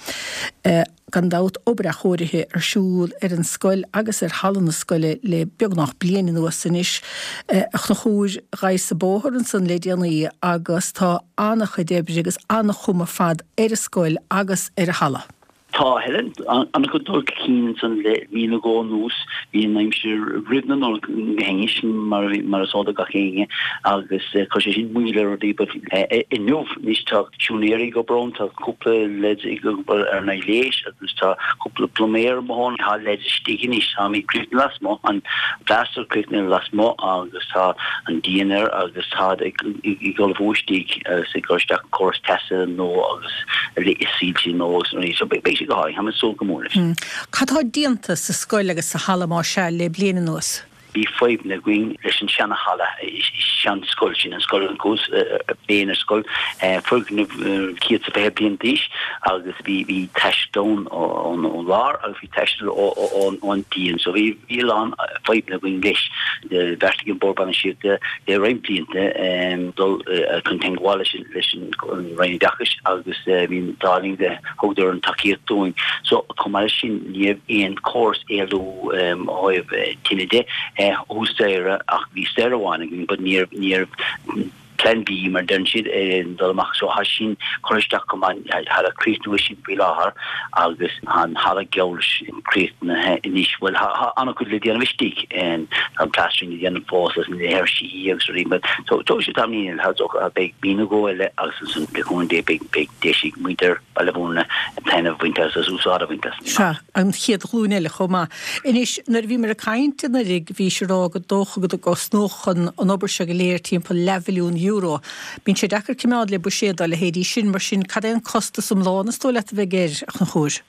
Gan dabht, obair athchóirithe ar siúl ar an scoil agus ar halla na scoile le beagnach bliain anuas anois. A Chonchúir, ghabhas-sa bóthar ansan le déanaí agus tá an-chuid oibre agus an-chuma ar fad ar an scoil agus ar an halla. Tá, Helen. An-chuid dul chun cinn ansan le mí nó dhó anuas. Bhí an aimsir roimh na Nollag go hainnis, mar is eol do gach éinne, agus chuir sé sin moill ar rudaí but inniu anois tá siúinéirí ag obair ann, tá cúpla leaids ag obair ar na gléis agus tá cúpla pluiméir amuigh ann. Tá leaids istigh anois, táimid críochnaithe lasmuigh, an plaster críochnaithe lasmuigh agus tá an díon air agus táid ag ullmhú istigh agus ag cur isteach córas teasa nua agus soilse nua agus rudaí. So beidh sé go hálainn, táim ag súil go mór leis. Cad tá déanta sa scoil agus sa halla más ea le bliain anuas? Bhí fadhbanna againn leis an seana-halla, sean-scoil sin, an scoil an scoil, foirgneamh 120 bliain d'aois agus bhí bhí taisce ann ón lár agus bhí taisce ón díon so bhí bhí a lán fadhbanna againn leis. Bheartaigh an Bord Bainistíochta le roinnt blianta dul chun teagmháil leis leis an Roinn Oideachais agus bhí an t-ádh linn go thugadar an tacaíocht dúinn. So chomh maith leis sin ní raibh aon chóras éalú ó thaobh tine de thuas staighre ach bhí staighre amháin againn but ní raibh ní raibh plan B mar deireann siad dul amach so tá sin curtha isteach chomh maith tá ag críochnú sin faoi láthair agus tá an halla geall leis críochnaithe anois bhuel tá an-chuid le déanamh istigh tá an plastering le déanamh fós agus na léirsí agus rudaí but so tógfaidh sé tamaillín eile beidh mí nó dhó eile agus ansan le cúnamh Dé beidh beidh deis ag muintir Bhaile Bhúirne taitneamh a bhaint as agus úsáid a bhaint as. Sea, an chéad ghlúin eile chomh maith. Anois, nuair a bhíomar ag caint anuraidh, bhís ag rá gur dócha go gcosnódh an obair seo go léir timpeall leathmhilliún euro. Bíonn sé deacair coimeád le buiséad dá leithéidí sin, mar sin, cad é an costas iomlán is dóigh leat a bheidh air, a Chonchúir?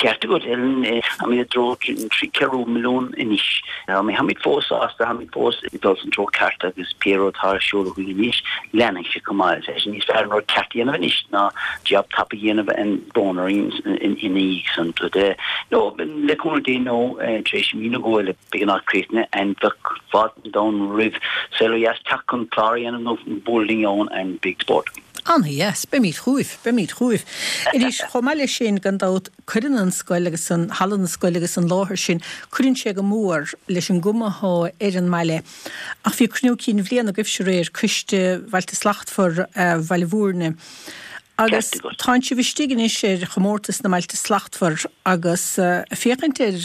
Ceart agat, Ellen. Táimid i dtreo trí ceathrú milliún anois. Táimid fós sásta, táimid fós ag dul san treo ceart agus pé rud atá ar siúl againn anois, leanfaidh sé chomh maith. Tá sé níos fearr an rud ceart a dhéanamh anois ná jab tapa a dhéanamh and brón orainn ina dhiaidh san. But no, le cúnamh Dé no, tar éis mí nó dhó eile beidh an áit críochnaithe and bheadh fáilte an domhain roimh Saol Ó Dheas teacht chun clár a dhéanamh nó bualadh linn ann and beidh spórt. Ana-dheas. Beimid chugaibh. Beimid chugaibh. Anois, chomh maith leis sin, gan dabht, Cuireann an scoil agus an halla na scoile agus an láthair sin, cuireann sé go mór leis an gcuma athá ar an mbaile. Ach bhí cruinniú cinn bhliana agaibhse aréir, Coiste Bhailte Slachtmhar Bhaile Bhúirne, agus tánn sibh istigh anois ar chomórtas na mBailte Slachtmhar agus ag féachaint ar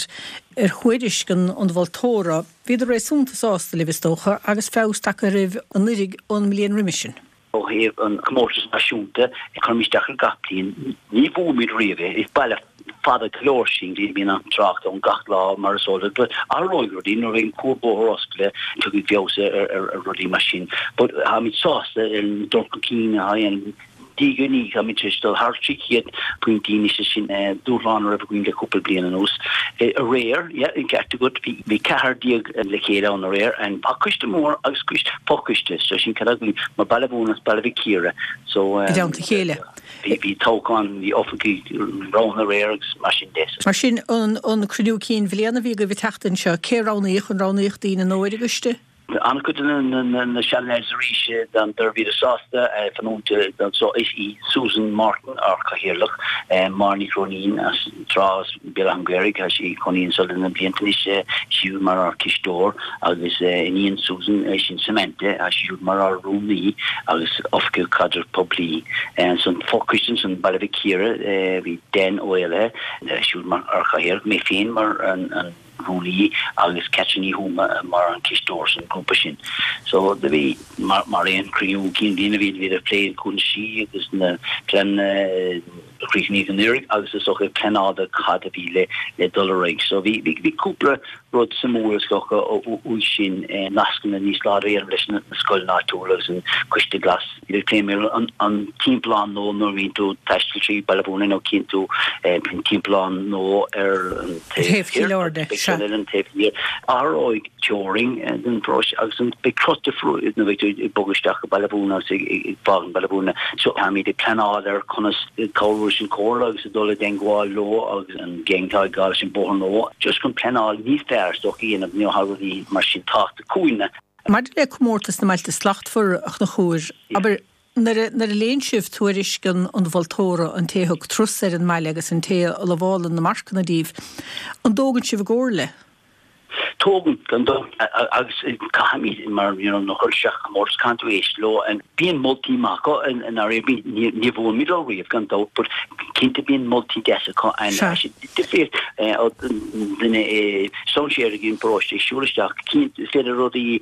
ar thuairisc an mholtóra, bhíodar réasúnta sásta libh is dócha agus feabhas tagtha oraibh anuiridh ón mbliain roimis sin. Ó thaobh an comórtas náisiúnta, cuirimid isteach air gach bliain. Ní bhuaimid riamh é. Is baile. fada go leor sin, bíonn an trácht ann gach lá mar is eol duit, but athróidh rudaí nuair a bheidh an cuarbhóthar oscailte, tiocfaidh feabhas ar rudaí mar sin. But táimid sásta ar an dul chun cinn atá á dhéanamh. Diaidh ar ndiaidh, táimid tar éis dul thar 300 pointí anois, is sin dúshlán a raibh againn le cúpla bliain anuas. Aréir, yeah, an ceart agat, bhí 14 le chéile ann aréir, and tá coiste mór agus coiste, fochoiste, so sin cad againn, mar Baile Mhúirne agus Baile Mhic Íre, so. I dteannta a chéile. Bhí toghchán, bhí oifigigh roghnaithe aréir agus mar sin de. Mar sin, an cruinniú cinn bhliana a bhí agaibh an tseachtain seo, cé a roghnaíodh? An roghnaíodh daoine nua ar an gcoiste? An-chuid de na seanleaids arís bhíodar sásta fanúint anso. Is í Susan Martin ár cathaoirleach, Máire Ní Chróinín as an Trá as Béal Átha an Ghaorthaidh, tá sí ag cónaí anso le na blianta anois, is í mar ár cisteoir agus iníon Susan sin Samantha, tá sí siúd mar ár rúnaí agus oifigeach caidreamh poiblí. Ansan fochoiste ansan Baile Mhic Íre, bhí Dan Ó Éalaithe siúd mar ár chathaoirleach, mé féin mar an rúnaí agus Catherine Ní Thuama mar an cisteoir san grúpa sin. So do bhí mar mar aon cruinniú cinn bhliana bhí bhíodar ag plé cúinsí agus na pleananna a chríochnaíodh anuraidh agus is dócha ag pleanáil do cad a bhí le le dul ar aghaidh. So bhí bhí bhí cúpla rud suimiúil is dócha uaidh sin nascanna níos láidre a dhéanamh leis na scoileanna áitiúla agus an Coiste Glas. Ag plé mar an timpeallán nua nuair a bhíonn tú ag taisteal trí Baile Mhúirne nó cíonn tú an timpeallán nua ar an taobh thiar beidh ceann eile an taobh thiar. Athróidh teorainn den pharóiste agus beidh cruth difriúil nuair a bheidh tú ag bogadh isteach go Baile Mhúirne agus ag fágaint Baile Mhúirne. So táimid ag pleanáil ar conas cabhrú leis an Chomhairle agus ag dul i dteangmháil leo agus an gang atá ag gabháil leis an bóthar nua just chun pleanáil níos fearr is dócha a dhéanamh nó tá rudaí mar sin tábhachtach chugainne. Maidir le Comórtas na mBailte Slachtmhara, a Chonchúir, abair, nuair a, nuair a léann sibh tuairisc an, an mholtóra, an té a thug turas ar an mbaile agus an té a lamhálann na marcanna díbh, an dtógann sibh a gcomhairle? Tógann, gan dabht, agus caithfimid, mar, you know, nuair a chuireann isteach comórtas, caithfidh tú éisteacht leo, and bíonn moltaí maith acu, i ndáiríre, bíonn, ní, ní bhuaimid leo riamh, gan dabht, but cinnte bíonn moltaí deasa acu, and Sea. difríocht ó duine i strainséir ag an bparóiste ag siúl isteach, cinnte is féidir rudaí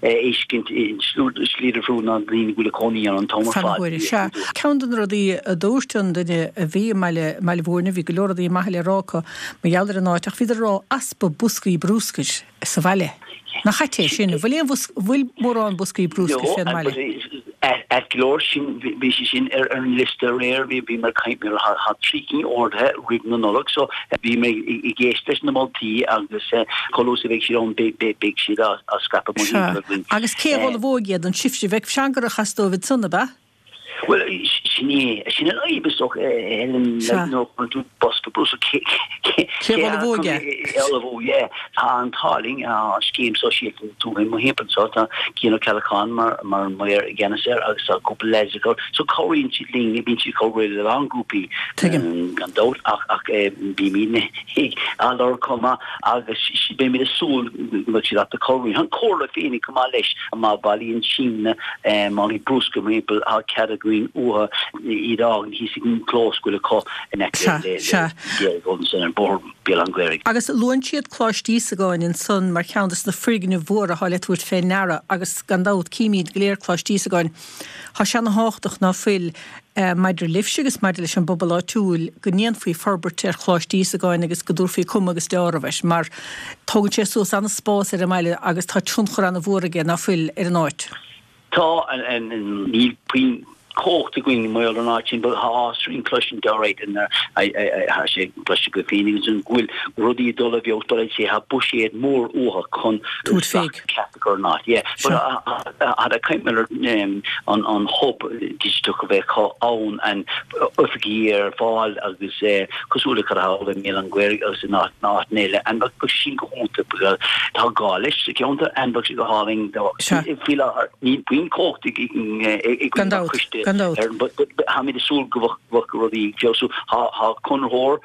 a fheiscint i slí difriúil ná daoine go bhfuil ag cónaí ann an t-am ar Fan fad. huaire, sea. Ceann de na rudaí a dúirt an duine a bhí i mBaile, mBaile Mhúirne, bhí go leor rudaí maithe le rá acu mar gheall ar an áit ach bhíodar ag rá easpa boscaí brúscair sa bhaile. Nach ait é sin? An bhfuil aon bhosca, an bhfuil mórán boscaí brúscair fén mbaile? Ait go leor, sin, bhí sé sin ar an liosta aréir, bhí, bhí mé ag caint, tá trí cinn ordaithe roimh na Nollag so bhí mé ag éisteacht leis na moltaí agus chomh luath is a bheidh siad ann beidh, beidh, beidh siad á, á scaipeadh Sea. mórthimpeall againn. Agus cé a ullmhóidh iad? An sibhse? Bheadh seangarach as dóibh ansan, ab ea? Bhuel, sin é, sin an fhadhb is dócha, Helen, Sea. nuair a chuireann tú bosca bruscair, cé, Cé a ullmhóidh é? cé a ullmhóidh é? Tá an t-ádh linn, tá an scéim sóisialta na tuaithe i mo thimpeall anseo, tá Cian Ó Ceallacháin mar, mar an maor i gceannas air agus tá cúpla leaids acu, so cabhraíonn siad linn, bíonn siad ag cabhrú le a lán grúpaí, Tuigim. gan dabht, ach, ach bímid á lorg chomh maith agus beimid ag súil go mbeidh siad ábalta cabhrú. An Chomhairle féinig chomh maith leis, má bhailíonn siadsan málaí bruscair mar shampla, tá cead againn uathu iad a fhágaint thíos ag an gclós go bhfuil acu in aice Sea, le sea. ansan ar Bhóthar Bhéal Átha an Ghaorthaidh. Agus luann siad Coláiste Íosagáin ansan mar cheann des na foirgnimh mhóra atá le tabhairt fé ndeara agus gan dabht címid go léir Coláiste Íosagáin. Tá sé ana thábhachtach ná fuil, maidir libhse agus maidir leis an bpobal áitiúil, go ndéanfaí forbairt ar Choláiste Íosagáin agus go dtabharfaí cuma agus deáramh air, mar tógann sé suas ana-spás ar an mbaile agus tá tionchar ana-mhór aige, ná fuil, ar an áit. Tá, níl puinn cumhacht againn mar gheall ar an áit sin, but tá áthas orainn cloisint alright, tá sé cloiste agaibh féin ansin go bhfuil rudaí ag dul i bhfeabhas, but I'd say tá buiséad mór uathu chun Tabhairt féig. ceart a chur ar an áit. Yeah, but Sea. Caint mar an an hub digiteach a bheith acu ann and oifigí ar fáil agus cosúil le cad atá i mBéal Átha an Ghaorthaidh agus in áiteanna eile and bheadh sin go hiontach because tá gá leis sa cheantar and bheadh sé go hálainn do Sea. faoi láthair níl puinn cumhacht ag ag Gan an dabht, coiste gan dabht. ar but but táimid ag súil go bheadh rudaí ag feabhsú. Tá tá conraitheoir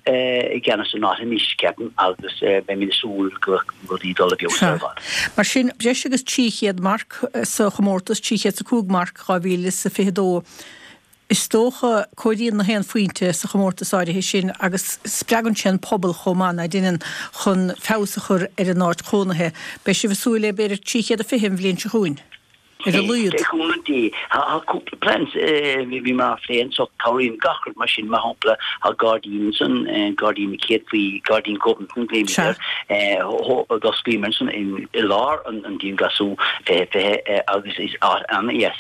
i gceannas an áit anois, ceapaim, agus beimid ag súil go bheadh rudaí ag dul i bhfeabhas Sea. ar fad. Mar sin, breis agus 300 marc sa chomórtas, 305 marc 2022. Is dócha, comhairíonn na haon phointe sa chomórtas áirithe sin agus spreagann sé an pobal chomh maith, ná deineann, chun feabhas a chur ar a n-áit chónaithe. Beidh sibh ag súil le b'fhéidir 320 an bhliain seo chugainn? Ar a laghad. Le cúnamh Dé, tá cúpla plans bhíomar á phlé anso, cabhraíonn gach rud mar sin, mar shampla, tá gairdín ansan, gairdín na céadfaí, gairdín Ghobnatan glaoimid air, d'osclaíomar ansan i lár an dianghlasú 2020 agus is áit an-dheas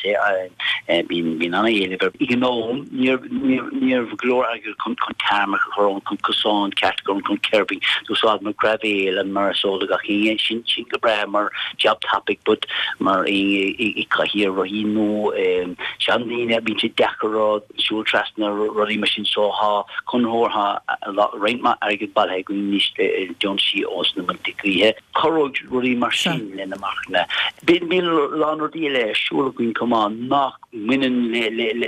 é, bíonn an-éileamh air. Ag an am, ní raibh go leor airgead chun tarmac a chur ann, chun cosán ceart a chur ann, chun curbing, d'úsáideamar graibhéal and mar is eol do gach éinne, sin go breá mar jab tapaidh but mar éinne ag cathaoir rothaí nó seandaoine bíonn sé deacair rud siúl trasna rudaí mar sin so thá conraitheoir thá roinnt maith airgead bailithe againn anois le deontaisí ós na Muilte Gaoithe. Cabhróidh rudaí mar sin le na marcanna. Bíonn a lán rudaí eile ar siúl againn chomh maith nach mbaineann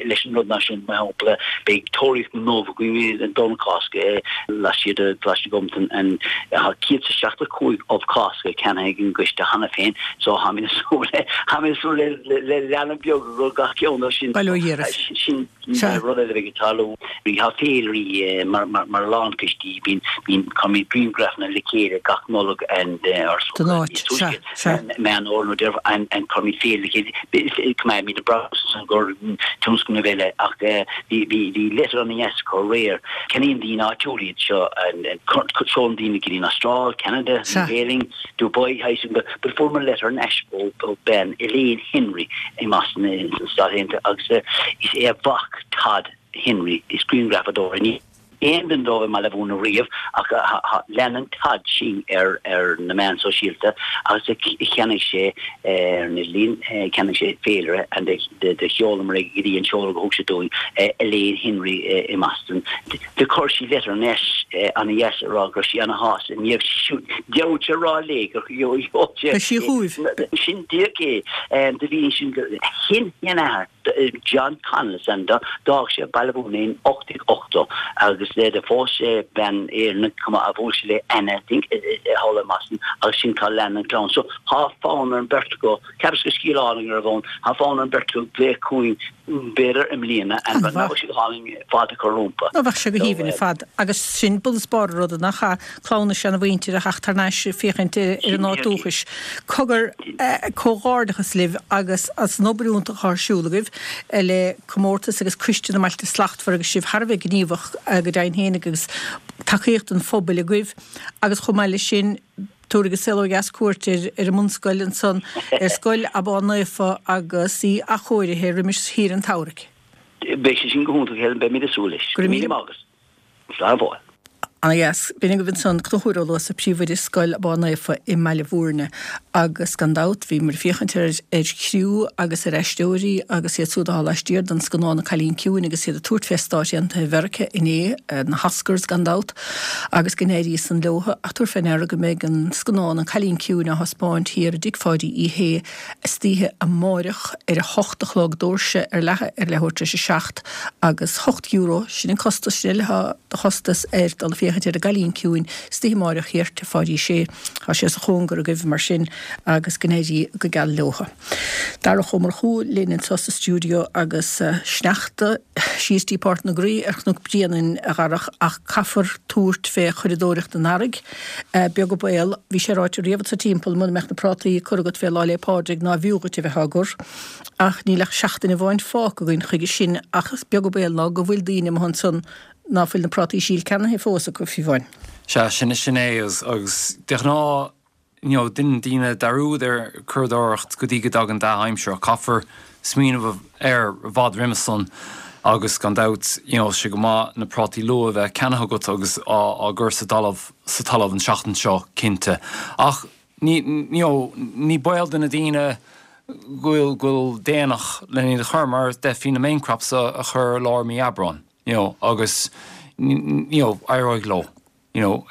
leis an rud náisiúnta, mar shampla, beidh Tóraíocht na nUbh againn an Domhnach Cásca laistiar de Choláiste Ghobnatan and tá 175 ubh Cásca ceannaithe ag an gcoiste cheana féin so táimid ag súil le táimid ag súil le le leanbh beag do gach ceann de sin. Bail ó Dhia oraibh. Sin rud eile a bheidh ag tarlú. Tá féilirí mar mar a lán coistí bíonn bíonn cuirimid grianghrafanna le chéile gach Nollaig and ár Don áit, sea, sea. Meán Fhómhair nó Deireadh and and cuirimid féile le chéile. Coimeádfaimid an brabús ansan do tionscnamh eile ach bhí bhí leitir ana-dheas acu aréir. Ceannaíonn daoine áitiúla iad seo seolann daoine go dtí an Astráil, Canada, New Zealand, Dubai, but fuaireamar leitir thar n-ais ó bean Elaine Henry i mBoston sna Stáit Aontaithe agus is é a mhac Todd Henry is grianghrafadóir é. Aon duine dóibh i mBaile Bhúirne riamh ach leanann Todd sinn ar ar na meáin sóisialta agus cheannaigh sé ar an idirlíon, cheannaigh sé féilire and do sheolamar é go dtí an seoladh a thug sé dúinn, Elaine Henry i mBoston. Do chuir sí leitir thar n-ais ana-dheas a rá go raibh sí ana-shásta ní raibh sí siúd dearúd sé a rá léi gur sheol sé Beidh sí chugaibh. Sin díreach é. Do bhí ansin go shin-sheanathair. John Connell is ainm dó. D'fhág sé Baile Bhúirne in 1880 agus do phós sé bean Éireannach chomh maith a bhuail sé le Anna I think thall i mBoston agus sin cá lean an clann. So thá fonn ar an beirt acu, cheapas gur scéal álainn a raibh ann, thá fonn ar an beirt acu glaoch chugainn b'fhéidir i mbliana and An-mhaith. bheadh sé go hálainn fáilte a chur rompu. Nó bheadh sé go haoibhinn ar fad agus sin bunús barr an ruda nach ea? Clann na seanamhuintire a theacht thar n-ais ag féachaint ar an áit dúchais. Cogar, comhghairdeachas libh agus as an obair iontach atá ar siúl agaibh le comórtas agus Coiste na mBailte Slachtmhara agus sibh thar a bheith gníomhach go deimhin féinig agus tacaíocht an phobail agaibh agus chomh maith leis sin tabharfaidh An Saol Ó Dheas cuairt ar an mbunscoil ansan, ar Scoil Abán Naofa agus í athchóirithe roimis shaoire an tsamhraidh. Beidh sé sin go hiontach Helen, beimid ag súil leis. Go raibh míle maith agat. Slán go fóill. Ana dheas. B'in agaibh ansan Conchúr Ó Luasa, Príomhoide Scoil Abán Naofa i mBaile Bhúirne. Agus gan dabht, bhíomar ag féachaint ar ar chriú agus ar aisteoirí agus iad súd atá laistiar den scannán An Cailín Ciúin agus iad ag tabhairt fé Stáit Aontaithe Mheirice inné, na hOscars gan dabht, agus go n-éirí san leotha. Ach tabhair fé ndeara go mbeidh an scannán An Cailín Ciúin á thaispeáint thiar i dTigh Pháidí Uí Shé istoíche amáireach ar a hocht a chlog, doirse ar leathadh ar leathuair tar éis a seacht agus €8, sin an costas, sin uile atá de chostas air dul ag féachaint ar an gCailín Ciúin istoíche amáireach thiar Tigh Pháidí Uí Shé. Tá sé sa chóngar agaibh mar sin agus go n-éirí go geal leotha. Darach Ó Murchú linn anseo sa stiúideo agus sneachta síos dtí Páirc na gCroí ar Chnoc Bréanainn a Dharach ach caithfear tabhairt fé churadóireacht an earraigh. Beag an baol, bhí sé ráite riamh anso timpeall, muna mbeadh na prátaí curtha agat fé Lá 'le Pádraig ná b'fhiú dhuit a bheith á gcur. Ach níl ach seachtain amháin fágtha againn chuige sin ach is beag an baol ná go bhfuil daoine amuigh ansan ná fuil na prátaí síl ceannaithe fós acu, fiú amháin. Sea, sin, sin é agus, agus de ghnáth, you know, déanann daoine dearúd ar churadóireacht go dtí go dtagann dea-aimsir ach caithfear smaoineamh air i bhfad roimhe san agus gan dabht, you know, sé go maith na prátaí luath a bheith ceannaithe agat agus á, á gcur sa dtalamh, sa talamh an seachtain seo cinnte. Ach ní, you know, ní baol do na daoine go bhfuil, go bhfuil déanach len iad a chur mar d'fhéadfaí na main crops a, a chur i lár mí Aibreáin, you know, agus, you know, éireoidh leo. You know,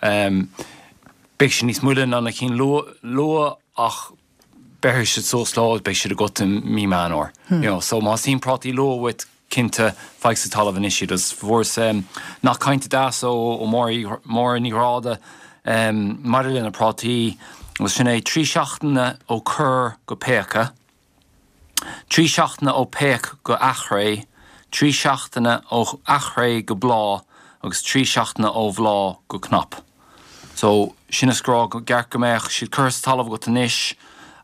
beidh siad níos moille ná na cinn luath ach beirfidh siad suas leo agus beidh siad agat i mí Meán Fhómhair. You know, so má theastaíonn prátaí luath uait, cinnte, faigh sa talamh anois iad. Agus fuaireas nath cainte deas ó Máire Ní Ghráda maidir le na prátaí agus sin é, 3 seachtaine ó cur go péacadh. 3 seachtaine ó péac go athchré, 3 seachtaine ó athchré go bláth agus 3 seachtaine ó bhláth go cnap. So, sin is go rá go gceart go mbeadh siad curtha sa talamh agat anois.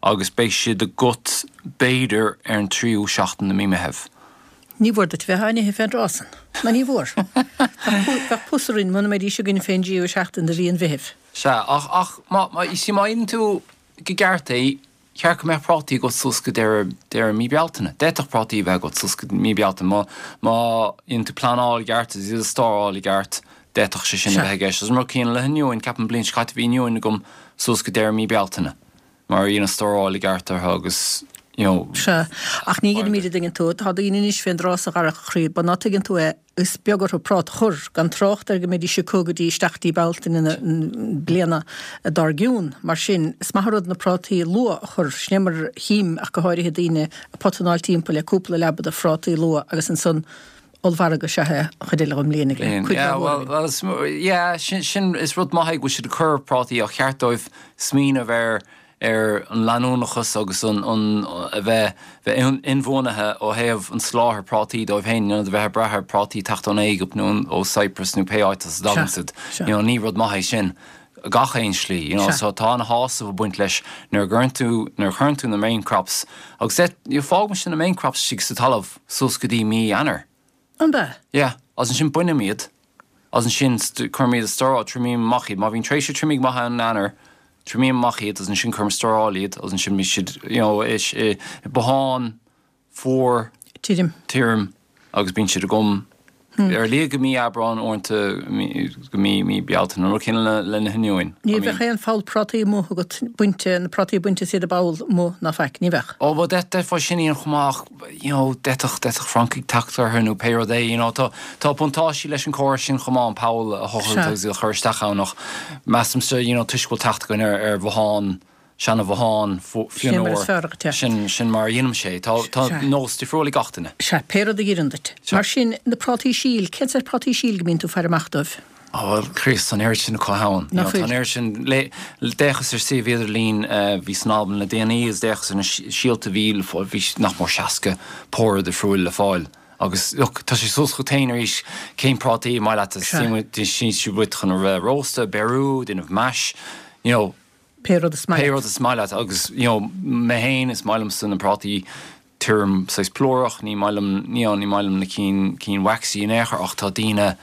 agus beidh siad agat b'fhéidir ar an tríú seachtain de mí Meitheamh. Ní mhór duit bheith á n-ithe fén dtráth san. Ná ní mhór. Bheadh pus orainn muna mbeidís againn fén dtríú seachtain de mhí an Mheithimh. Sea, ach, ach má, má, you see, má dhéanann tú go gceart é, cheart go mbeadh prátaí agat suas go deireadh, deireadh mí Bealtaine. D'fhéadfadh prátaí a bheith agat suas go mí Bealtaine. Má, má dhéanann tú pleanáil i gceart agus iad a stóráil i gceart, d'fhéadfadh sé sin a bheith i gceist. Agus an rud céanna le hoinniúin, ceapaim an bliain seo caite bhí oinniúin agam suas go deireadh mí Bealtaine. Mar dheineas stóráil i gceart orthu agus you know. Sea, ach ní dheinimíd a dtuigeann tú. Tá daoine anois fén dtráth so a Dharach a chroí, ba ná tuigeann tú é, is beag orthu práta a chur, gan trácht ar go mbeidís acu go dtí isteach dtí Bealtaine na bliana dár gcionn. Mar sin, is maith an rud na prátaí luath a chur, sin é mar a chím ach go háirithe daoine ag potanáil timpeall le cúpla leaba de phrátaí luath agus ansan ollmhargadh is ea é an chuid eile den mbliain ag cuid Yeah, mhór well, againn. well, yeah, sin, sin, is rud maith é go bhfuil siad ag cur prátaí ach cheart dóibh smaoineamh ar, ar an leanúnachas agus an, an, a bheith, bheith inbhuanaithe ó thaobh an soláthair prátaí dóibh féin, in ionad a bheith ag brath ar prátaí teacht ón Éigipt nó ó Cyprus nó pé áit as a dtagann siad. You know, ní rud maith é sin. gach aon slí, you know, so tá ana-shásamh ag baint leis nuair a gcuireann tú, nuair a chuireann tú na main crops agus eh, you know, fágaimse na main crops istigh sa talamh suas go dtí mí Eanáir. An b'ea? Yeah, agus ansin bainim iad agus ansin cuirim iad i stóráil, triomaím amach iad, má bhíonn tréimhse triomaigh maith ann in Eanáir, triomaím amach iad agus ansin cuirim i stóráil iad agus ansin bíonn siad, you know, i, i, i botháin, fuar, tirim, tirim agus bíonn siad agam ar a laghad go mí Aibreáin, uaireanta go mí mí Bealtaine, an rud céanna le na hoinniúin. Ní bheadh aon pholl prátaí amuigh agat bainte, na prátaí bainte is iad i bpoll amuigh ná faic, ní bheadh. Ó bhuel d'fhéadfá sin a dhéanamh chomh maith ach you know d'fhéadfadh d'fhéadfadh francaigh teacht orthu nó pé rud é you know tá tá buntáistí leis an chóras sin chomh maith an poll a thochailt agus iad a chur isteach ann ach measaimse you know toisc go bhfuil teacht againn ar ar bhothán seana-bhothán fionnuar, sin, sin mar a dheinimse é. Tá, tá nós difriúil ag gach duine. Sea, pé rud a dh'oireann duit. Mar sin, na prátaí síl, cén saghas prátaí síl go mbíonn tú ag faire amach dóibh? Ó, bhuel, Chríost, tá an oiread sin acu ann. Nach bhfuil? Tá an oiread sin, le, d'fhéachas ar suíomh idirlín a bhí san Albain le déanaí agus d'fhéachas ar na síolta a bhí le fáil, bhí nach mór 60 pór difriúil le fáil. Agus, look, tá sé suas chugat féin arís, cén prátaí is maith leat, teastaíonn siad uait chun a bheith rósta, beiriú, déanamh mash, you know, Pé rud is maith leat. Pé rud is maith leat agus you know mé féin is maith liomsa na prátaí tirim saghas plúrach, ní maith liom you know ní maith liom na cinn cinn waxy in aon chor ach tá daoine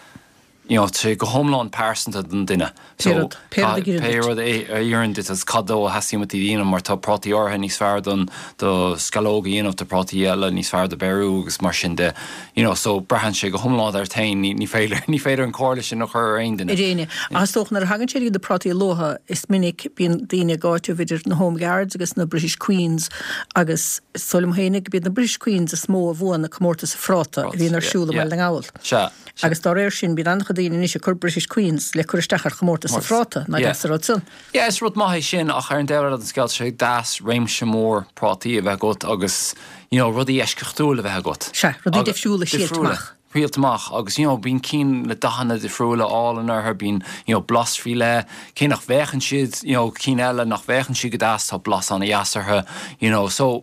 you know tá sé go hiomlán pearsanta don duine. Pé rud, pé rud a oireann duit. Pé rud a oireann duit agus cad dó a theastaíonn uait iad a dhéanamh mar tá prátaí áirithe níos fearr don do sceallóg a dhéanamh, tá prátaí eile níos fearr do beiriú agus mar sin de. You know, so braitheann sé go hiomlán ort féin, ní, ní féidir, ní féidir an comhairle sin a chur ar aon duine. Ar éinne. Ach is dócha nuair a thagann sé go na prátaí luatha, is minic bíonn daoine ag áiteamh idir na Home Guards agus na British Queens agus is dóigh liom féinig go b'iad na British Queens is mó a bhuann na comórtais phráta a bhíonn ar siúl i mBaile na nGall. Sea. Agus dá réir sin bíonn an-chuid daoine anois ag cur British Queens le cur isteach ar chomórtas an phráta, nach deas an rud san. Yeah, is rud maith é sin ach ar an dtaobh eile den scéal tá sé deas réimse mór prátaí a bheith agat agus you know rudaí eisceachtúil a bheith agat. Sea, rudaí difriúla thriailt amach. Thriailt amach agus you know bíonn cinn le dathanna difriúla álainn orthu, bíonn you know blas faoi leith, cé nach bhféachann siad you know cinn eile nach bhféachann siad go deas tá blas ana-dheas orthu you know so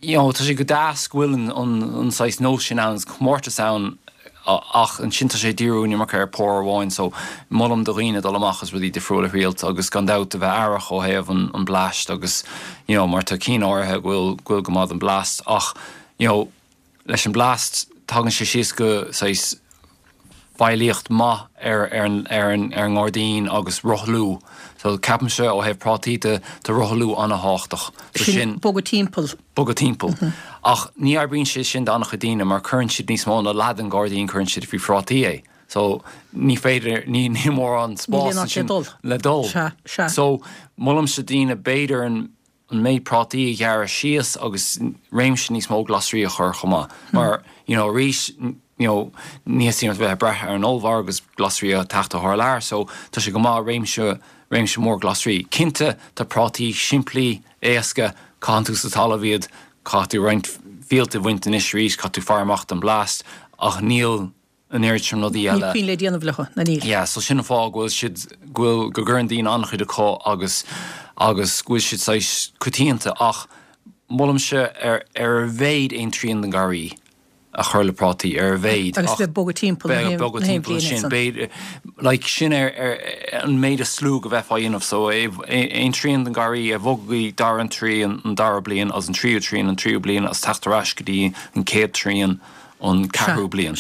you know, tá sé go deas go bhfuil an, an, an saghas nós sin ann, comórtas ann ach ansin tá sé ag díriú an iomarca ar pór amháin so molaim do dhaoine dul amach agus rudaí difriúla a thriailt agus gan dabht a bheith aireach ó thaobh an, an blast agus you know, mar tá cinn áirithe go bhfuil, go bhfuil go maith don blast ach you know, Leis an blast, tagann sé síos go saghas feighlíocht maith ar ar ar an ar an ngairdín agus rothlú. So ceapaimse ó thaobh prátaí de, tá rothlú an-thábhachtach. So sin. Sin bogadh timpeall. Bogadh timpeall. Ach ní oibríonn sé sin d'an-chuid daoine mar cuireann siad níos mó ná leath den ghairdín cuireann siad faoi phrátaí é. So ní féidir, ní níl mórán spás ansin le dul. Sea, sea. So molaimse daoine b'fhéidir an an méid prátaí a ghearradh síos agus réimse níos mó glasraí a chur chomh maith. Mar, you know, arís, you know, ní theastaíonn uait bheith ag brath ar an ollmhargadh agus glasraí ag teacht ó thar lear, so tá sé go maith réimse, réimse mór glasraí. Cinnte, tá prátaí simplí, éasca, caitheann tú sa talamh iad, caithfidh tú roinnt fíolta a bhaint anois arís, caithfidh tú faire amach don blast, ach níl, an oiread sin rudaí eile. Níl puinn le déanamh leo, ná níl. Yeah, so sin an fáth go bhfuil siad, go bhfuil, go gcuireann daoine an-chuid acu agus, agus go bhfuil siad saghas coitianta ach molaimse ar, ar a mhéad aon trian den garraí. a chur le prátaí ar a mhéad. Agus bheith ag bogadh timpeall na haon bhliain ansin. B'fhéidir, like, sin ar an méid is lú go bheifeá a dhéanamh so aon trian den gharraí a bhogadh go dtí dara an trian an dara bliain agus an tríú trian an tríú bliain agus teacht ar ais go dtí an chéad trian an ceathrú bliain.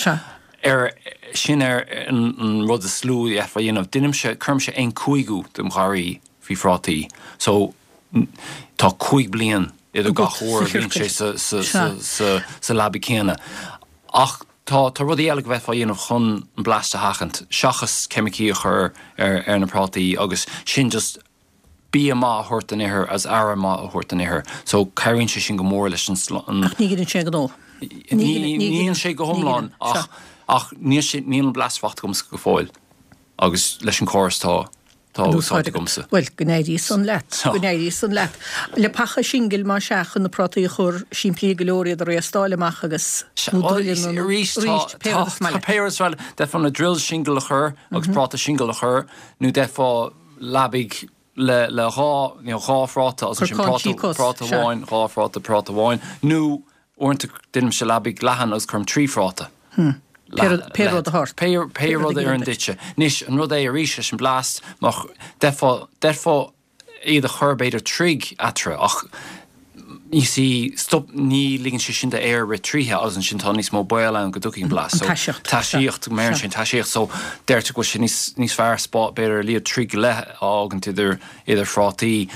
Ar sin ar an rud is lú a d'fhéadfá a dhéanamh. Deinimse, cuirimse aon cúigiú dem gharraí faoi phrátaí so tá 5 bliain idir gach uair a bhíonn sé sa leaba céanna. Ach tá tá rudaí eile go bhféadfá a dhéanamh chun an blast a sheachaint, seachas ceimicí a chur ar ar na prátaí agus sin just bia maith a thabhairt don ithir agus aire maith a thabhairt don ithir. So cabhraíonn sé sin go mór leis an. Ach ní ghineann sé an gnó. Ní ghineann sé go hiomlán ach ach níl sé níl an blast faighte agamsa go fóill agus leis an córas tá Tá úsáid agamsa. Bhuel, go n-éirí san leat. Go n-éirí san leat. Leapacha singil más ea chun na prátaí a chur, simplí go leor iad a réastáil amach agus, nó druileanna nó, arís, pé rud is maith leat. Pé rud is maith leat. D'fhéadfá na drills singil a chur agus práta singil a chur nó d'fhéadfá leabaidh le le dhá, you know, dhá phráta agus ansin práta, práta amháin, dhá phráta, práta amháin nó Uaireanta déanaimse leabaidh leathan agus cuirim 3 phráta. Pé rud a tharla. Pé rud a oireann duitse. Anois, an rud é arís leis an blast, má, d'fhéadfá, d'fhéadfá iad a chur b'fhéidir troigh eatarthu ach you see, stop, ní ligeann sé sin d'aer rith tríothu agus ansin tá níos mó baol ann go dtiocfaidh an blast. An taiseacht. Taiseacht, go mbeireann sé an taiseacht. So, deirtear go bhfuil sé níos, níos fearr spá, b'fhéidir a laghad troigh go leith a fhágaint idir, idir phrátaí.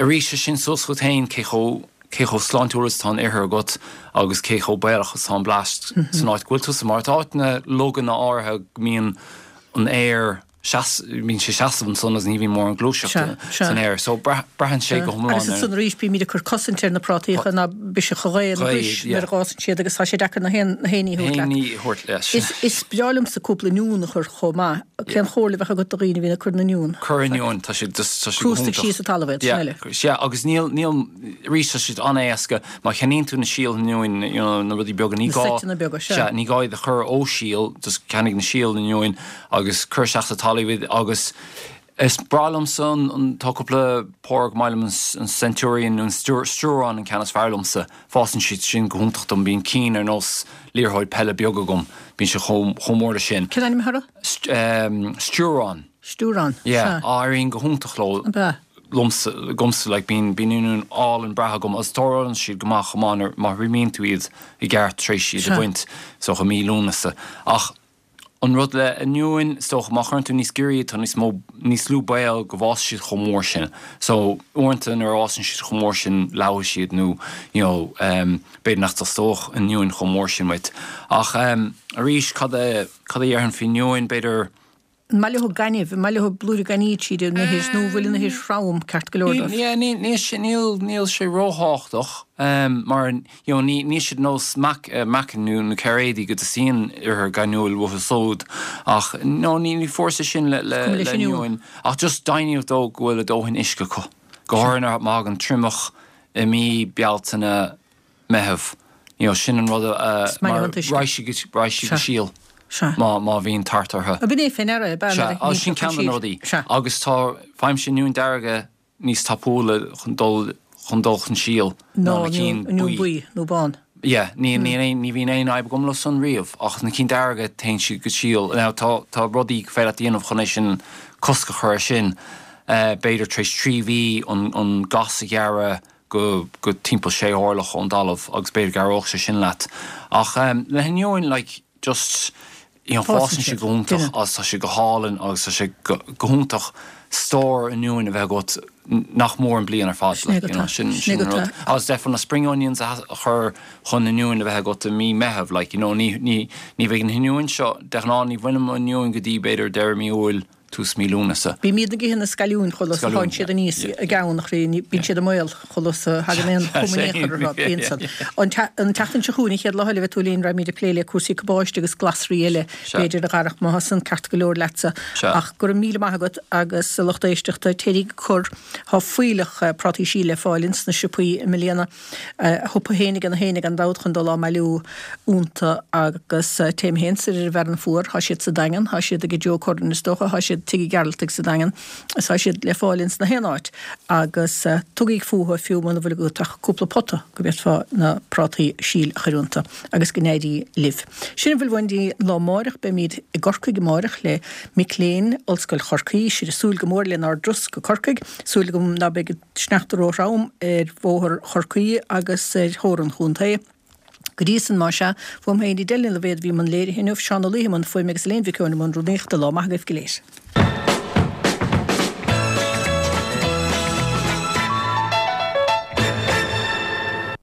Arís, sé sin suas chugat féin cé chomh cé chomh sláintiúil is atá an ithir agat agus cé chomh baolach is atá an blast san áit go bhfuil tusa. Mar tá áiteanna loganna áirithe go mbíonn an aer seas bíonn sé seasamh ansan agus ní bhíonn mórán gluaiseachta san aer. So braitheann sé go hiomlán ar. Agus ansan arís bímid ag cur cosaint ar na prátaíocha ná biseach an ghaoth ina gcois nuair a dh'fhásann siad agus tá sé deacair na haon na haon ní a thabhairt leat. Is is breá liomsa cúpla oinniún a chur chomh maith. Cén chomhairle a bheadh agat do dhaoine a bhíonn ag cur na n-oinniún? Cuir oinniúin, tá siad just, tá siad go hiontach. Crústaigh síos sa talamh iad, sin eile. Sea, agus níl, níl, arís tá siad an-éasca, má cheannaíonn tú na síol oinniúin, you know, na rudaí beaga, ní gá. Na seiteanna beaga, sea. Sea, ní gá iad a chur ó shíol, just ceannaigh na síol oinniúin agus cuir isteach sa talamh iad agus is breá liomsa an, an, tá cúpla pór go maith liom, an Centurion nó an Sturon an ceann is fearr liomsa. Fásann siad sin go hiontach dom. Bíonn cinn ar nós liathróid peile beag agam. Bíonn sé chomh chomh mór leis sin. Cén ainm atá orthu? Sturon. Sturon, Yeah, sea. éiríonn go hiontach leo. Ab ea? Liomsa, agamsa, like, bíonn bíonn oinniúin álainn breátha agam agus tarlaíonn siad go maith chomh maith nuair má thriomaíonn tú iad i gceart tar éis iad a bhaint, is dócha mí Lúnasa. Ach An rud le oinniúin, is dócha, má chuireann tú níos giorra iad, tá níos mó, níos lú baol go bhfásfaidh siad chomh mór sin. So, uaireanta nuair a fhásann siad chomh mór sin, leáfaidh siad nó, you know, ehm, b'fhéidir nach dteastódh oinniúin chomh mór sin uait. Ach, ehm, arís, cad a, cad a dhéarfainn faoi oinniúin, b'fhéidir, An maith leo gaineamh, an maith leo blúire gainimh tríd an ithir nó an bhfuil an ithir throm ceart go leor dóibh? Yeah, níl, níl sé, níl, níl sé róthábhachtach, ehm, mar, you know, ní, níl siad nós meac, meacain nó, nó cairéidí go dteastaíonn ithir ghainniúil uathu súd ach, no, ní, ní fórsa sin le, le, Is cuma leis le oinniúin ach just deimhníodh dó go bhfuil a dóthain uisce acu, go háirithe má thagann triomach i mí Bealtaine, Meitheamh. You know, sin an rud a, Is maith mar leo an t-uisce. raghaidh siad, raghaidh siad go Sea. síol Sea. má, má bhíonn tart orthu. Ab in é fé ndeara é, ab ea, Sea, nuair a á, sin shíneoidh ceann de na siad. rudaí. Sea. Agus tá, faighimse oinniúin dearga níos tapúla chun dul, chun dul chun síl ná ná na cinn oinniún buí. buí nó bán. Yeah, ní, níl aon, ní bhíonn aon fhadhb agam leo san riamh, ach na cinn dearga, téann siad go síol. Now, tá, tá rudaí gur féidir leat a dhéanamh chun é sin, cosc a chur air sin. B'fhéidir tar éis 3 mhí an, an gas a ghearradh, go go timpeall sé orlach ón dtalamh agus b'fhéidir go gcabhródh sé sin leat. Ach le hoinniúin like just you know Fásann fásann siad siad, go hiontach duine. agus tá siad go hálainn agus tá sé go go hiontach stór oinniúin a bheith agat nach mór an bliain ar fad Sin é like go you know tá, sin sin é sin go an rud. tá. Agus d'fhéadfá na spring onions a a chur chun oinniúin a bheith agat i mí Meitheamh like you know ní ní ní bheidh na hoinniúin seo de ghnáth ní bhainim oinniúin go dtí b'fhéidir deireadh mí Iúil tús mí Lúnasa. Bímid ag ithe na scailliúin chomh luath 's a Scailliún, thánn siad aníos i gceann a chroí, bíonn siad i mbaol chomh luath 's a thagann aon chuma in aon chor orthu, bíonn san. An tseachtain seo chugainn, an chéad lá eile a bheidh tú linn, raghaimid ag plé le cúrsaí cabáiste agus glasraí eile, b'fhéidir, a Dharach, má tá san ceart go leor leatsa. Ach go raibh míle maith agat agus a lucht éisteachta, téiríg ag cur, tá fuílleach prátaí síl le fáil ins na siopaí i mbliana. A shiopa féin ag na héinne gan dabht chun dul á mbailiú iontu agus téim féin soir ar an bhFearann Fuar, thá siad sa Daingean, thá siad ag Joe Curran is dócha, thá siad. siad Tigh Uí Ghearaltaigh sa Daingean, tá siad le fáil ins na haon áit agus tugaíg fúthu fiú muna bhfuil agat ach cúpla pota go bhféadfá na prátaí síl a chur iontu agus go n-éirí libh. Sin a bhfuil uainn don lá amáireach. Beimíd i gCorcaigh amáireach le mic léinn Ollscoil Chorcaí. Sibh ag súil go mór lenár dturas go Corcaigh. Súil agam ná beidh an sneachta ró-throm ar bhóthar Chorcaí agus ar thóir an chontae. Go dtí san, más ea, uaim féin Edel Ní Loibhéad a bhí i mbun léirithe inniu, Seán Ó Laoithe i mbun fuaime agus Elaine Mhic Eoin i mbun rúnaíochta. Lá maith agaibh go léir.